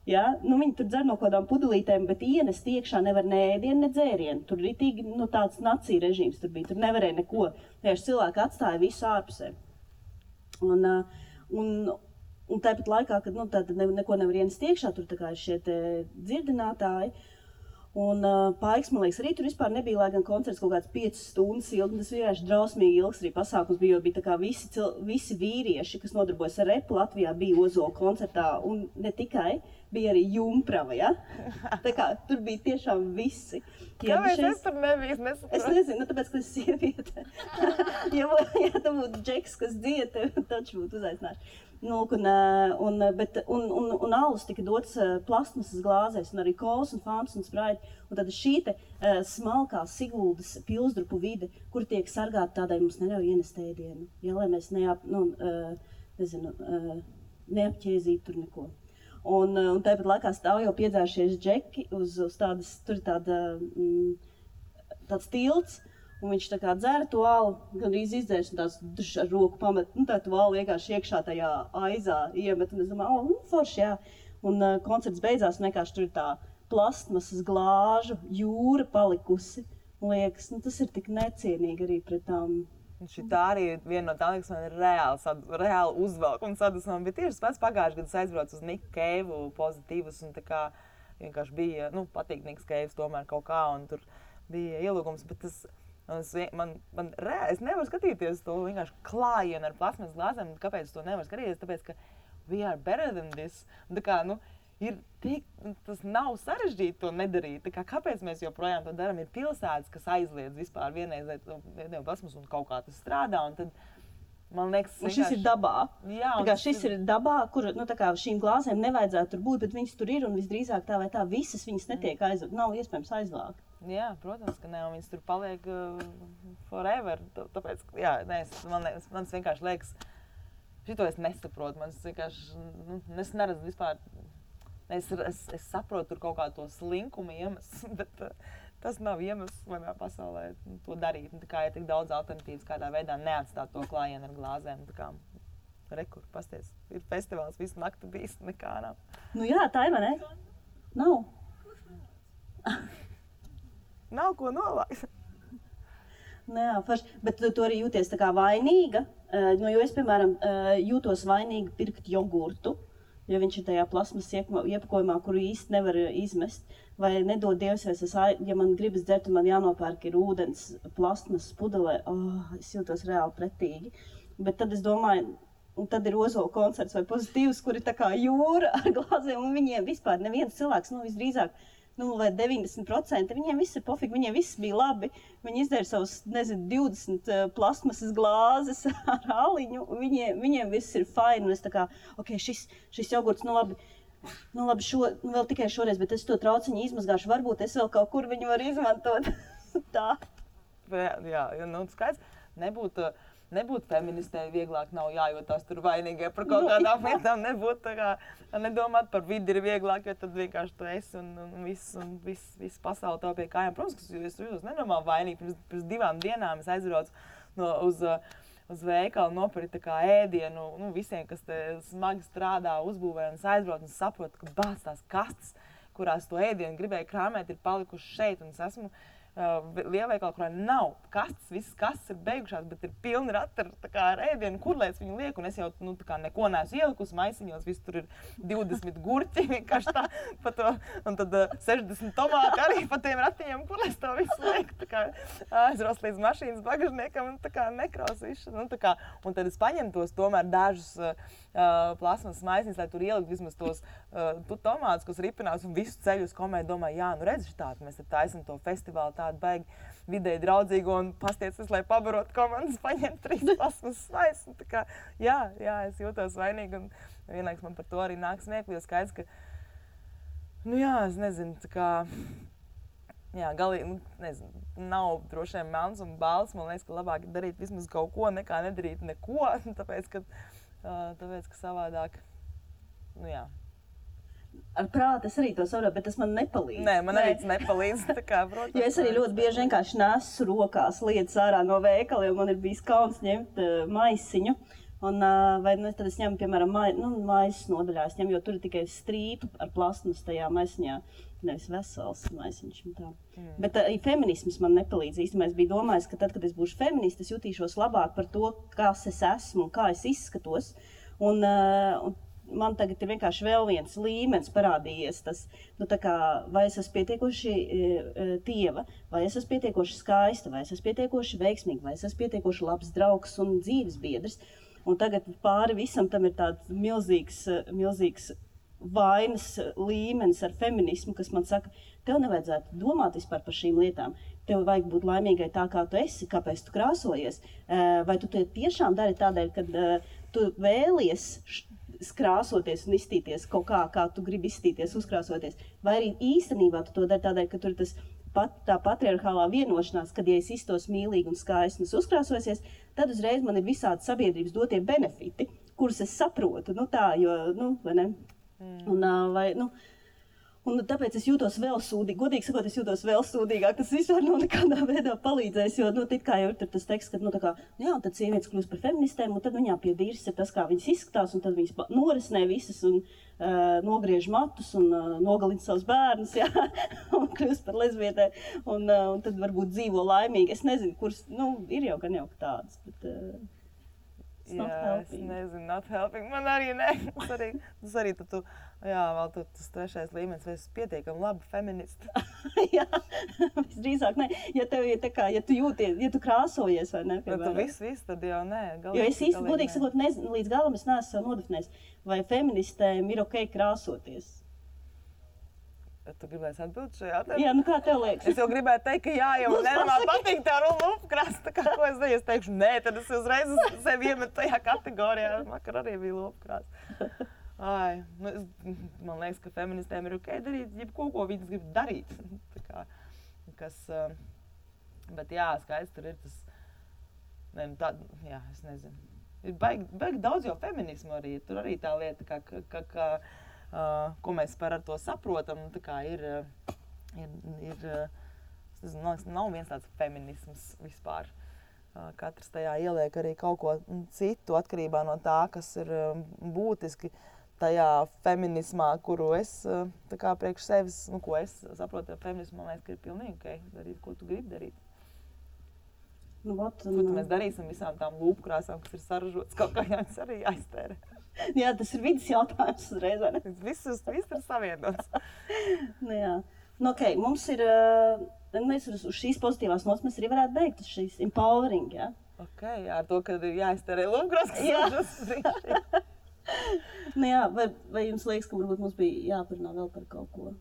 Viņi tur dzer no kādām pudelītēm, bet ienest iekšā nevar ne ēdienu, ne dzērienu. Tur ritīgi tāds nacija režīms tur bija, tur nevarēja neko. Tieši cilvēki atstāja visu ārpusē. Un tāpat laikā, kad neko nevar ienest iekšā, tur tā kā ir šie dzirdinātāji. Un Paiks, man liekas, arī tur vispār nebija, lai gan koncerts kaut kāds 5 stundas ilgi. Tas vienkārši drausmīgi ilgs arī pasākums bija, jo bija tā kā visi vīrieši, kas nodarbojas ar repu Latvijā, bija Ozola koncertā. Un ne tikai, bija arī jumprava, Tā kā tur bija tiešām visi. Kāpēc es tur nebiju? Es nezinu, tāpēc, ka es sieviete. ja tam būtu džeks, kas dzieta, taču būtu uzaicināši. Un alus tika dots plastmasas glāzēs, un arī kols un fantas un spraiti. Un tad šī smalkā Siguldas Pilsdrupu vide, kur tiek sargāta tādai mums neļauj ienest ēdienu, lai mēs neapķēzītu tur neko. Un tāpat laikā stāv jau piedzērušies džeki uz tādas, tur ir tāds tilts, un viņš tā kā dzēra to alu, gandrīz izdzērs un tās ar roku pamet, tā to alu vienkārši iekšā tajā aizā iemet, un es domāju, forši, Un koncerts beidzās, un vienkārši tur ir tā plastmasas glāžu jūra palikusi. Liekas, tas ir tik necienīgi arī pret tām Šitā arī ir viena no tām, kas man ir reāli uzvelk un sadusmā. Bet tieši pats pagājuši gadu es aizbraucu uz Niku Keivu pozitīvus un tā kā vienkārši bija, patīk Niks Keivs tomēr kaut kā un tur bija ielūgums. Bet es nevaru skatīties to vienkārši klājienu ar plasmas glāzēm. Kāpēc es to nevaru skatīties? Tāpēc, ka we are better than this. Un tā kā, tas nav sarežģīti to nedarīt. Kāpēc mēs joprojām to darām? Ir pilsētas, kas aizliedz vispār vienreiz plasmas un kaut kā tas strādā. Un tad, man liekas, šis ir dabā. Jā, šis ir dabā, kur šīm glāzēm nevajadzētu tur būt, bet viņas tur ir un visdrīzāk tā vai tā visas viņas netiek aizvākt. Nav iespējams aizvākt. Jā, protams, ka ne, un viņas tur paliek forever. Tāpēc, man vienkārši liekas, šito es nesaprotu. Man vienkārši, es neredzu vispār. Es saprotu tur kaut kādu to slinkumu iemeslu, bet tas nav iemesls manā pasaulē to darīt. Tā kā ir tik daudz alternatīvas, kādā veidā neatstāt to klājienu ar glāzēm. Tā kā rekur, pasties, ir festivāls, visu nakti bijis, nekā nav. Jā, tā ir, vai ne? Nav. Nav ko novākt. Jā, bet tu arī jūties tā kā vainīga, jo es, piemēram, jūtos vainīga pirkt jogurtu. Jo viņš ir tajā plasmas iepakojumā, kuru īsti nevar izmest. Vai nedod Dievs, ja man gribas dzert, man jānopērk ir ūdens plasmas pudelē. Es jūtos reāli pretīgi. Bet tad es domāju, un tad ir Ozola koncerts vai pozitīvs, kur ir tā kā jūra ar glāzēm, un viņiem vispār neviens cilvēks, visdrīzāk, vai 90%, viņiem viss ir pofīgi, viņiem viss bija labi. Viņi izdēra savus, 20 plasmasas glāzes ar aliņu, viņiem viss ir fine. Un es tā kā, šis jogurts, labi, vēl tikai šoreiz, bet es to trauciņu izmazgāšu, varbūt es vēl kaut kur viņu varu izmantot. Tā. Jā, skaidrs, nebūt feministei vieglāk nav jājūtās tur vainīgai par kaut kādām lietām, nedomāt par vidi ir vieglāk, jo tad vienkārši tu esi un viss pasauli tev pie kājām. Protams, ka es jūtos nenormāli vainīgi. Pirms 2 dienām es aizbraucu uz veikalu nopirkt ēdienu, visiem, kas te smagi strādā, uzbūvē, un es aizbraucu un saprotu, ka bāc tās kastes, kurās to ēdienu gribēju krāmēt, ir palikuši šeit, un es esmu lielveikala, kurā nav kastes, visas kastes ir beigušās, bet ir pilni rati ar ēdienu, kur lai es viņu lieku, un es jau neko neesmu ielikusi maisiņos, viss tur ir 20 gurķi, vienkārši tā, pa to, un tad 60 tomāti arī pa tiem ratiņiem, kur lai es to visu lieku, aizros līdz mašīnas bagažniekam, un nekraus visu, un tad es paņemu tos tomēr dažus plasmas maisiņus, lai tur ielikt vismaz tos tomātus, kas ripinās, un visu ceļu uz komēju domāju, redzi šitāt, mēs te taisam to festivālu tādu baigi vidēji draudzīgu un pastiecis, lai pabarot komandas, paņemt 3 plasmas maisus. Jā, es jūtos vainīgi, un vienlaiks man par to arī nāk smieklīgi, jo skaidrs, ka, es nezinu, galīgi, nav droši vien melns un balts, man liekas, ka labāk ir darīt vismaz kaut ko, nekā nedarīt neko, tāpēc, ka savādāk, Ar prātu es arī to saprotu, bet tas man nepalīdz. Nē, man arī tas nepalīdz. Protams, jo es arī ļoti bieži vienkārši nesu rokās lietas ārā no veikala, jo man ir bijis kauns ņemt maisiņu. Tad es ņemu, piemēram, maisas nodaļā, jo tur ir tikai strīpa ar plasmas tajā maisiņā, nevis vesels maisiņš. Bet feminisms man nepalīdz īstenībā. Es biju domājis, ka tad, kad es būšu feministe, es jutīšos labāk par to, kas es esmu un kā es izskatos. Man tagad ir vienkārši vēl viens līmenis parādījies, vai es esmu pietiekoši tieva, vai es esmu pietiekoši skaista, vai es esmu pietiekoši veiksmīga, vai es esmu pietiekoši labs draugs un dzīves biedrs. Un tagad pāri visam tam ir tāds milzīgs vainas līmenis ar feminismu, kas man saka, tev nevajadzētu domāt vispār par šīm lietām. Tev vajag būt laimīgai tā, kā tu esi, kāpēc tu krāsojies. Vai tu to tiešām dari tādēļ, ka tu vēlies krāsoties un izstīties kaut kā tu gribi izstīties, uzkrāsoties. Vai arī īstenībā tu to dari tādēļ, ka tur ir tā patriarchālā vienošanās, kad ja es iztos mīlīgi un skaisti un uzkrāsosies, tad uzreiz man ir visādi sabiedrības dotie benefiti, kurus es saprotu, vai ne? Un tāpēc es jūtos vēl sūdīgi, godīgi sakot, es jūtos vēl sūdīgāk. Tas vispār nav nekādā veidā palīdzējis, jo, nu, kā jau ir tas teksts, ka, nu, tā kā, jā, un tad sievietes kļūst par feministēm, un tad viņām pie dīras ir tas, kā viņas izskatās, un tad viņas norisnē visas un nogriež matus un nogalina savus bērnus, jā, un kļūst par lesbietē, un tad varbūt dzīvo laimīgi. Es nezinu, kuras, nu, ir jau gan jau tādas, bet... Jā, es nezinu, not helping. Man arī ne. Tas arī tu, jā, vēl tas trešais līmenis, vai es pietiekami labi feministi. Jā, visdrīzāk ne. Ja tev ir tā kā, ja tu jūties, ja tu krāsojies vai ne, piemēram. Ja tu viss, tad jau nē. Jo es īsti, godīgi sakot, nezinu, līdz galam es neesmu sev nodefinējis, vai feministēm ir ok krāsoties. Tu gribēsi atbildi šajā jautājumā? Jā, nu kā tev liekas? Es jau gribēju teikt, ka jā, jo man nenormāli patīk tā lupkrāsa, tā kā ko es daļu, es teikšu, nē, tad es uzreiz sevi iemetu tajā kategorijā, vakar arī bija lupkrāsa. Ai, nu, man liekas, ka feministēm ir ok darīt, jebko, ko viņas grib darīt. Tā kā, kas, bet jā, skaidrs, tur ir tas, ne, nu tā, jā, es nezinu. Ir baigi daudz jau feminismu arī, tur arī tā lieta, ka ko mēs par ar to saprotam, tā kā ir es nezinu, nav viens tāds feminisms vispār. Katrs tajā ieliek arī kaut ko citu atkarībā no tā, kas ir būtiski tajā feminismā, kuru es tā kā priekš sevis, nu, ko es saprotu ar feminismu, man liekas, ka ir pilnīgi ok, darīt, ko tu gribi darīt. Nu, ko mēs darīsim visām tām lūpkrāsām, kas ir saražotas, kaut kā jāņas arī jāiztērē. Jā, tas ir vidas jautājums uzreiz, vai ne? Viss ir savienots. Nu, jā. Nu, ok, mums ir, mēs uz šīs pozitīvās nots mēs arī varētu beigt uz šīs empowering, jā? Ok, jā, ar to, ka ir jāiztērē lūpkrās, kas saražotas priekšē. Nu jā, vai jums liekas, ka varbūt mums bija jāparunā vēl par kaut ko?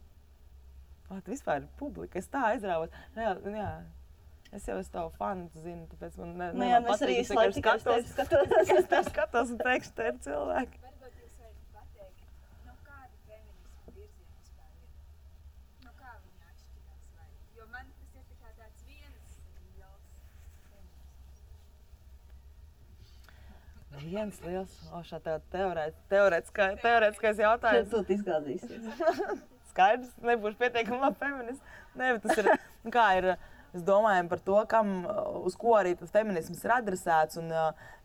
Vispār ir publika, es tā aizrāvot. Jā. Es jau esmu tavu fanu, tu zini, tāpēc man jā, mēs arī slēp tikai es tev skatos un teikšu, te ir cilvēki. Varbūt jūs varat pateikt, no kāda feminisma virziena vispār ir? No kā viņa atšķirās vai? Jo man tas ir tikai tāds viens liels feminisms. Viens liels, šā teorētiskais jautājums. Šeit tu izgādīsies. Skaidrs, nebūšu pietiekami labi feminists. Nē, bet tas ir, kā ir... Es domāju par to, uz ko arī tas feminisms ir adresēts, un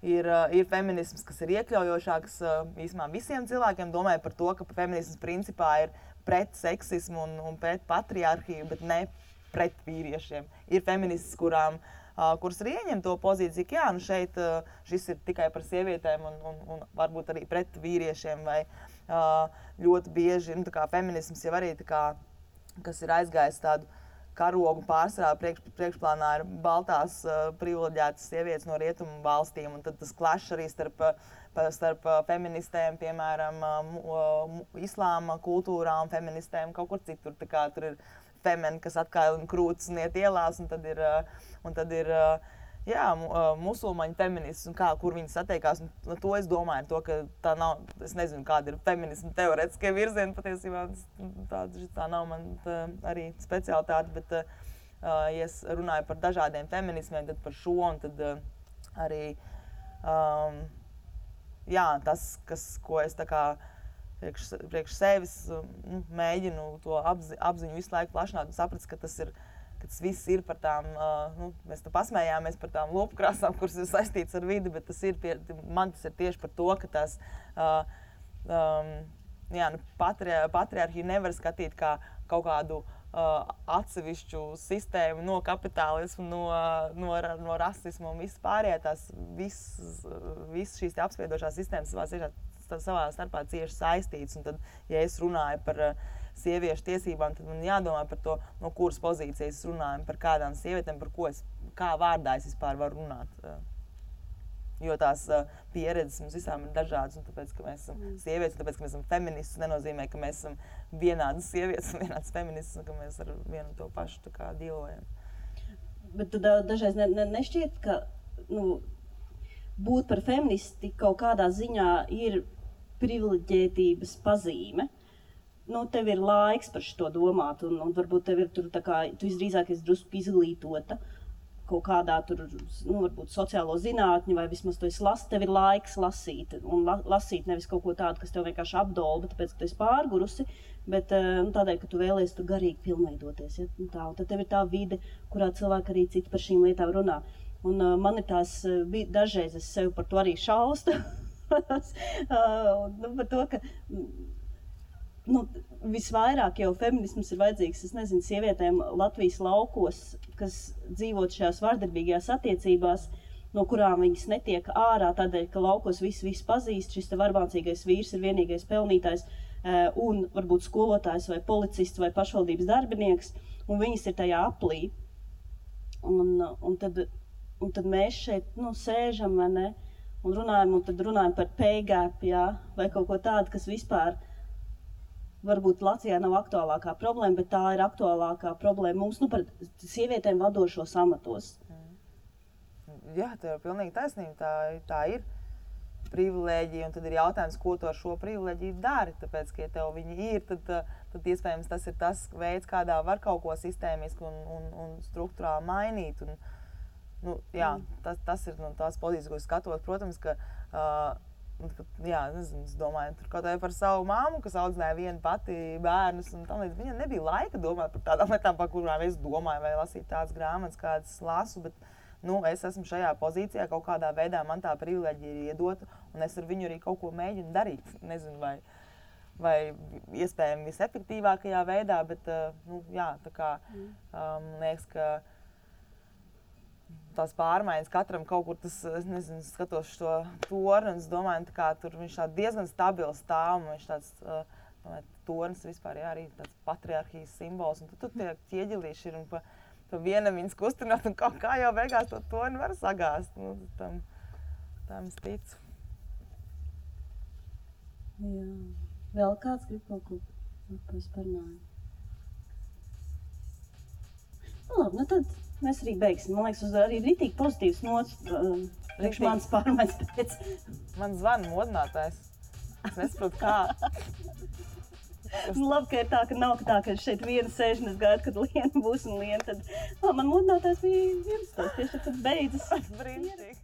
ir feminisms, kas ir iekļaujošāks īsumā visiem cilvēkiem. Domāju par to, ka feminisms principā ir pret seksismu un pret patriarhiju, bet ne pret vīriešiem. Ir feministas, kuras arī ieņem to pozīciju, ka jā, nu šeit šis ir tikai par sievietēm un varbūt arī pret vīriešiem, vai ļoti bieži, nu tā kā feminisms jau arī tā kā, kas ir aizgājis tādu karogu pārsvarā priekšplānā ir baltās privileģētas sievietes no rietumu valstīm, un tad tas klašs arī starp feministēm, piemēram, islāma kultūrā un feministēm kaut kur citur. Tā kā tur ir femeni, kas atkailina krūtis un iet ielās, un tad ir jā, musulmaņu feminists un kur viņi satiekās. Un to es domāju, to, ka tā nav, es nezinu, kāda ir feminisma teorētiskie virzieni, patiesībā tā nav man arī specialitāte, bet ja es runāju par dažādiem feminismiem, tad par šo, un tad arī, jā, tas, ko es tā kā priekš sevis mēģinu to apziņu visu laiku plašināt un saprast, ka tas viss ir par tām, mēs te pasmējāmies par tām lopkrāsām, kuras ir saistītas ar vidi, bet man tas ir tieši par to, ka tās patriarhiju nevar skatīt kā kaut kādu atsevišķu sistēmu no kapitālismu, no rasismu un viss pārējā. Viss šīs apspiedošās sistēmas savā starpā cieši saistītas. Un tad, ja es runāju par sieviešu tiesībām, tad man jādomā par to, no kuras pozīcijas es runāju, par kādām sievietēm, kā vārdā es vispār varu runāt. Jo tās pieredzes mums visām ir dažādas, un tāpēc, ka mēs esam sievietes, un tāpēc, ka mēs esam feministas, nenozīmē, ka mēs esam vienādas sievietes un vienādas feministas, un ka mēs ar vienu to pašu tā kā dzīvojam. Bet tu dažreiz nešķiet, ka būt par feministi kaut kādā ziņā ir privileģētības pazīme. Tev ir laiks par šo domāt, un varbūt tev ir tur tā kā, tu visdrīzāk esi drusku izglītota. kaut kādā tur, varbūt sociālo zinātņu, vai vismaz tu esi tev ir laiks lasīt, un lasīt nevis kaut ko tādu, kas tev vienkārši apdolba, tāpēc, ka tu esi pārgurusi, bet tādēļ, ka tu vēlies tur garīgi pilnveidoties, ja? Un tad tev ir tā vide, kurā cilvēki arī citi par šīm lietām runā. Un man ir tās, dažreiz es sev par to arī šaustu, par to, ka visvairāk jau feminisms ir vajadzīgs, es nezinu, sievietēm Latvijas laukos, kas dzīvot šajās vardarbīgajās attiecībās, no kurām viņas netiek ārā, tādēļ, ka laukos visu pazīst, šis te varbācīgais vīrs ir vienīgais pelnītājs, un varbūt skolotājs vai policists vai pašvaldības darbinieks, un viņas ir tajā aplī. Un tad mēs šeit, sēžam, vai ne, un runājam par pay gap, jā, vai kaut ko tādu, kas vispār varbūt Latvijā nav aktuālākā problēma, bet tā ir aktuālākā problēma mums, par sievietēm vadošos amatos. Jā, tev ir pilnīgi taisnība, tā ir privilēģija, un tad ir jautājums, ko tu ar šo privilēģiju dari, tāpēc, ka ja tev viņi ir, tad iespējams tas ir tas veids, kādā var kaut ko sistēmiski un struktūrāli mainīt. Tas ir tās pozīcijas, ko skatos, protams, ka nezinu, es domāju, tur kaut vai par savu māmu, kas audzināja vienu pati bērnus, un tam līdz viņam nebija laika domāt par tādām lietām, par kurām es domāju, vai lasīt tādas grāmatas, kādas lasu, bet es esmu šajā pozīcijā, kaut kādā veidā man tā privilēģija ir iedota, un es ar viņu arī kaut ko mēģinu darīt. Nezinu, vai iespējami visefektīvākajā veidā, bet tā kā liekas, ka tās pārmaiņas katram kaut kur tas, es nezinu, skatos šo torni, un es domāju, ka tur viņš diezgan stabils stāv, un viņš tāds tornis vispār arī tāds patriarhijas simbols, un tad tie ķieģelīši ir un pa vienam viņas kustināt, un kaut kā jau beigās to torni var sagāzt. Tam es ticu. Jā. Vēl kāds grib kaut ko parunāt? Labi, tad mēs arī beigsim. Man liekas, uz arī ritīgi pozitīvs nots, priekš manas pārmaiņas pēc. Man zvana modinātājs. Es nesaprotu, kā. Labi, ka ir tā, ka nav tā, ka šeit viena sēž un es gaidu, kad Liena būs un Liena tad... man modinātājs bija 11. tieši tad beidzas. Brīnišķīgi.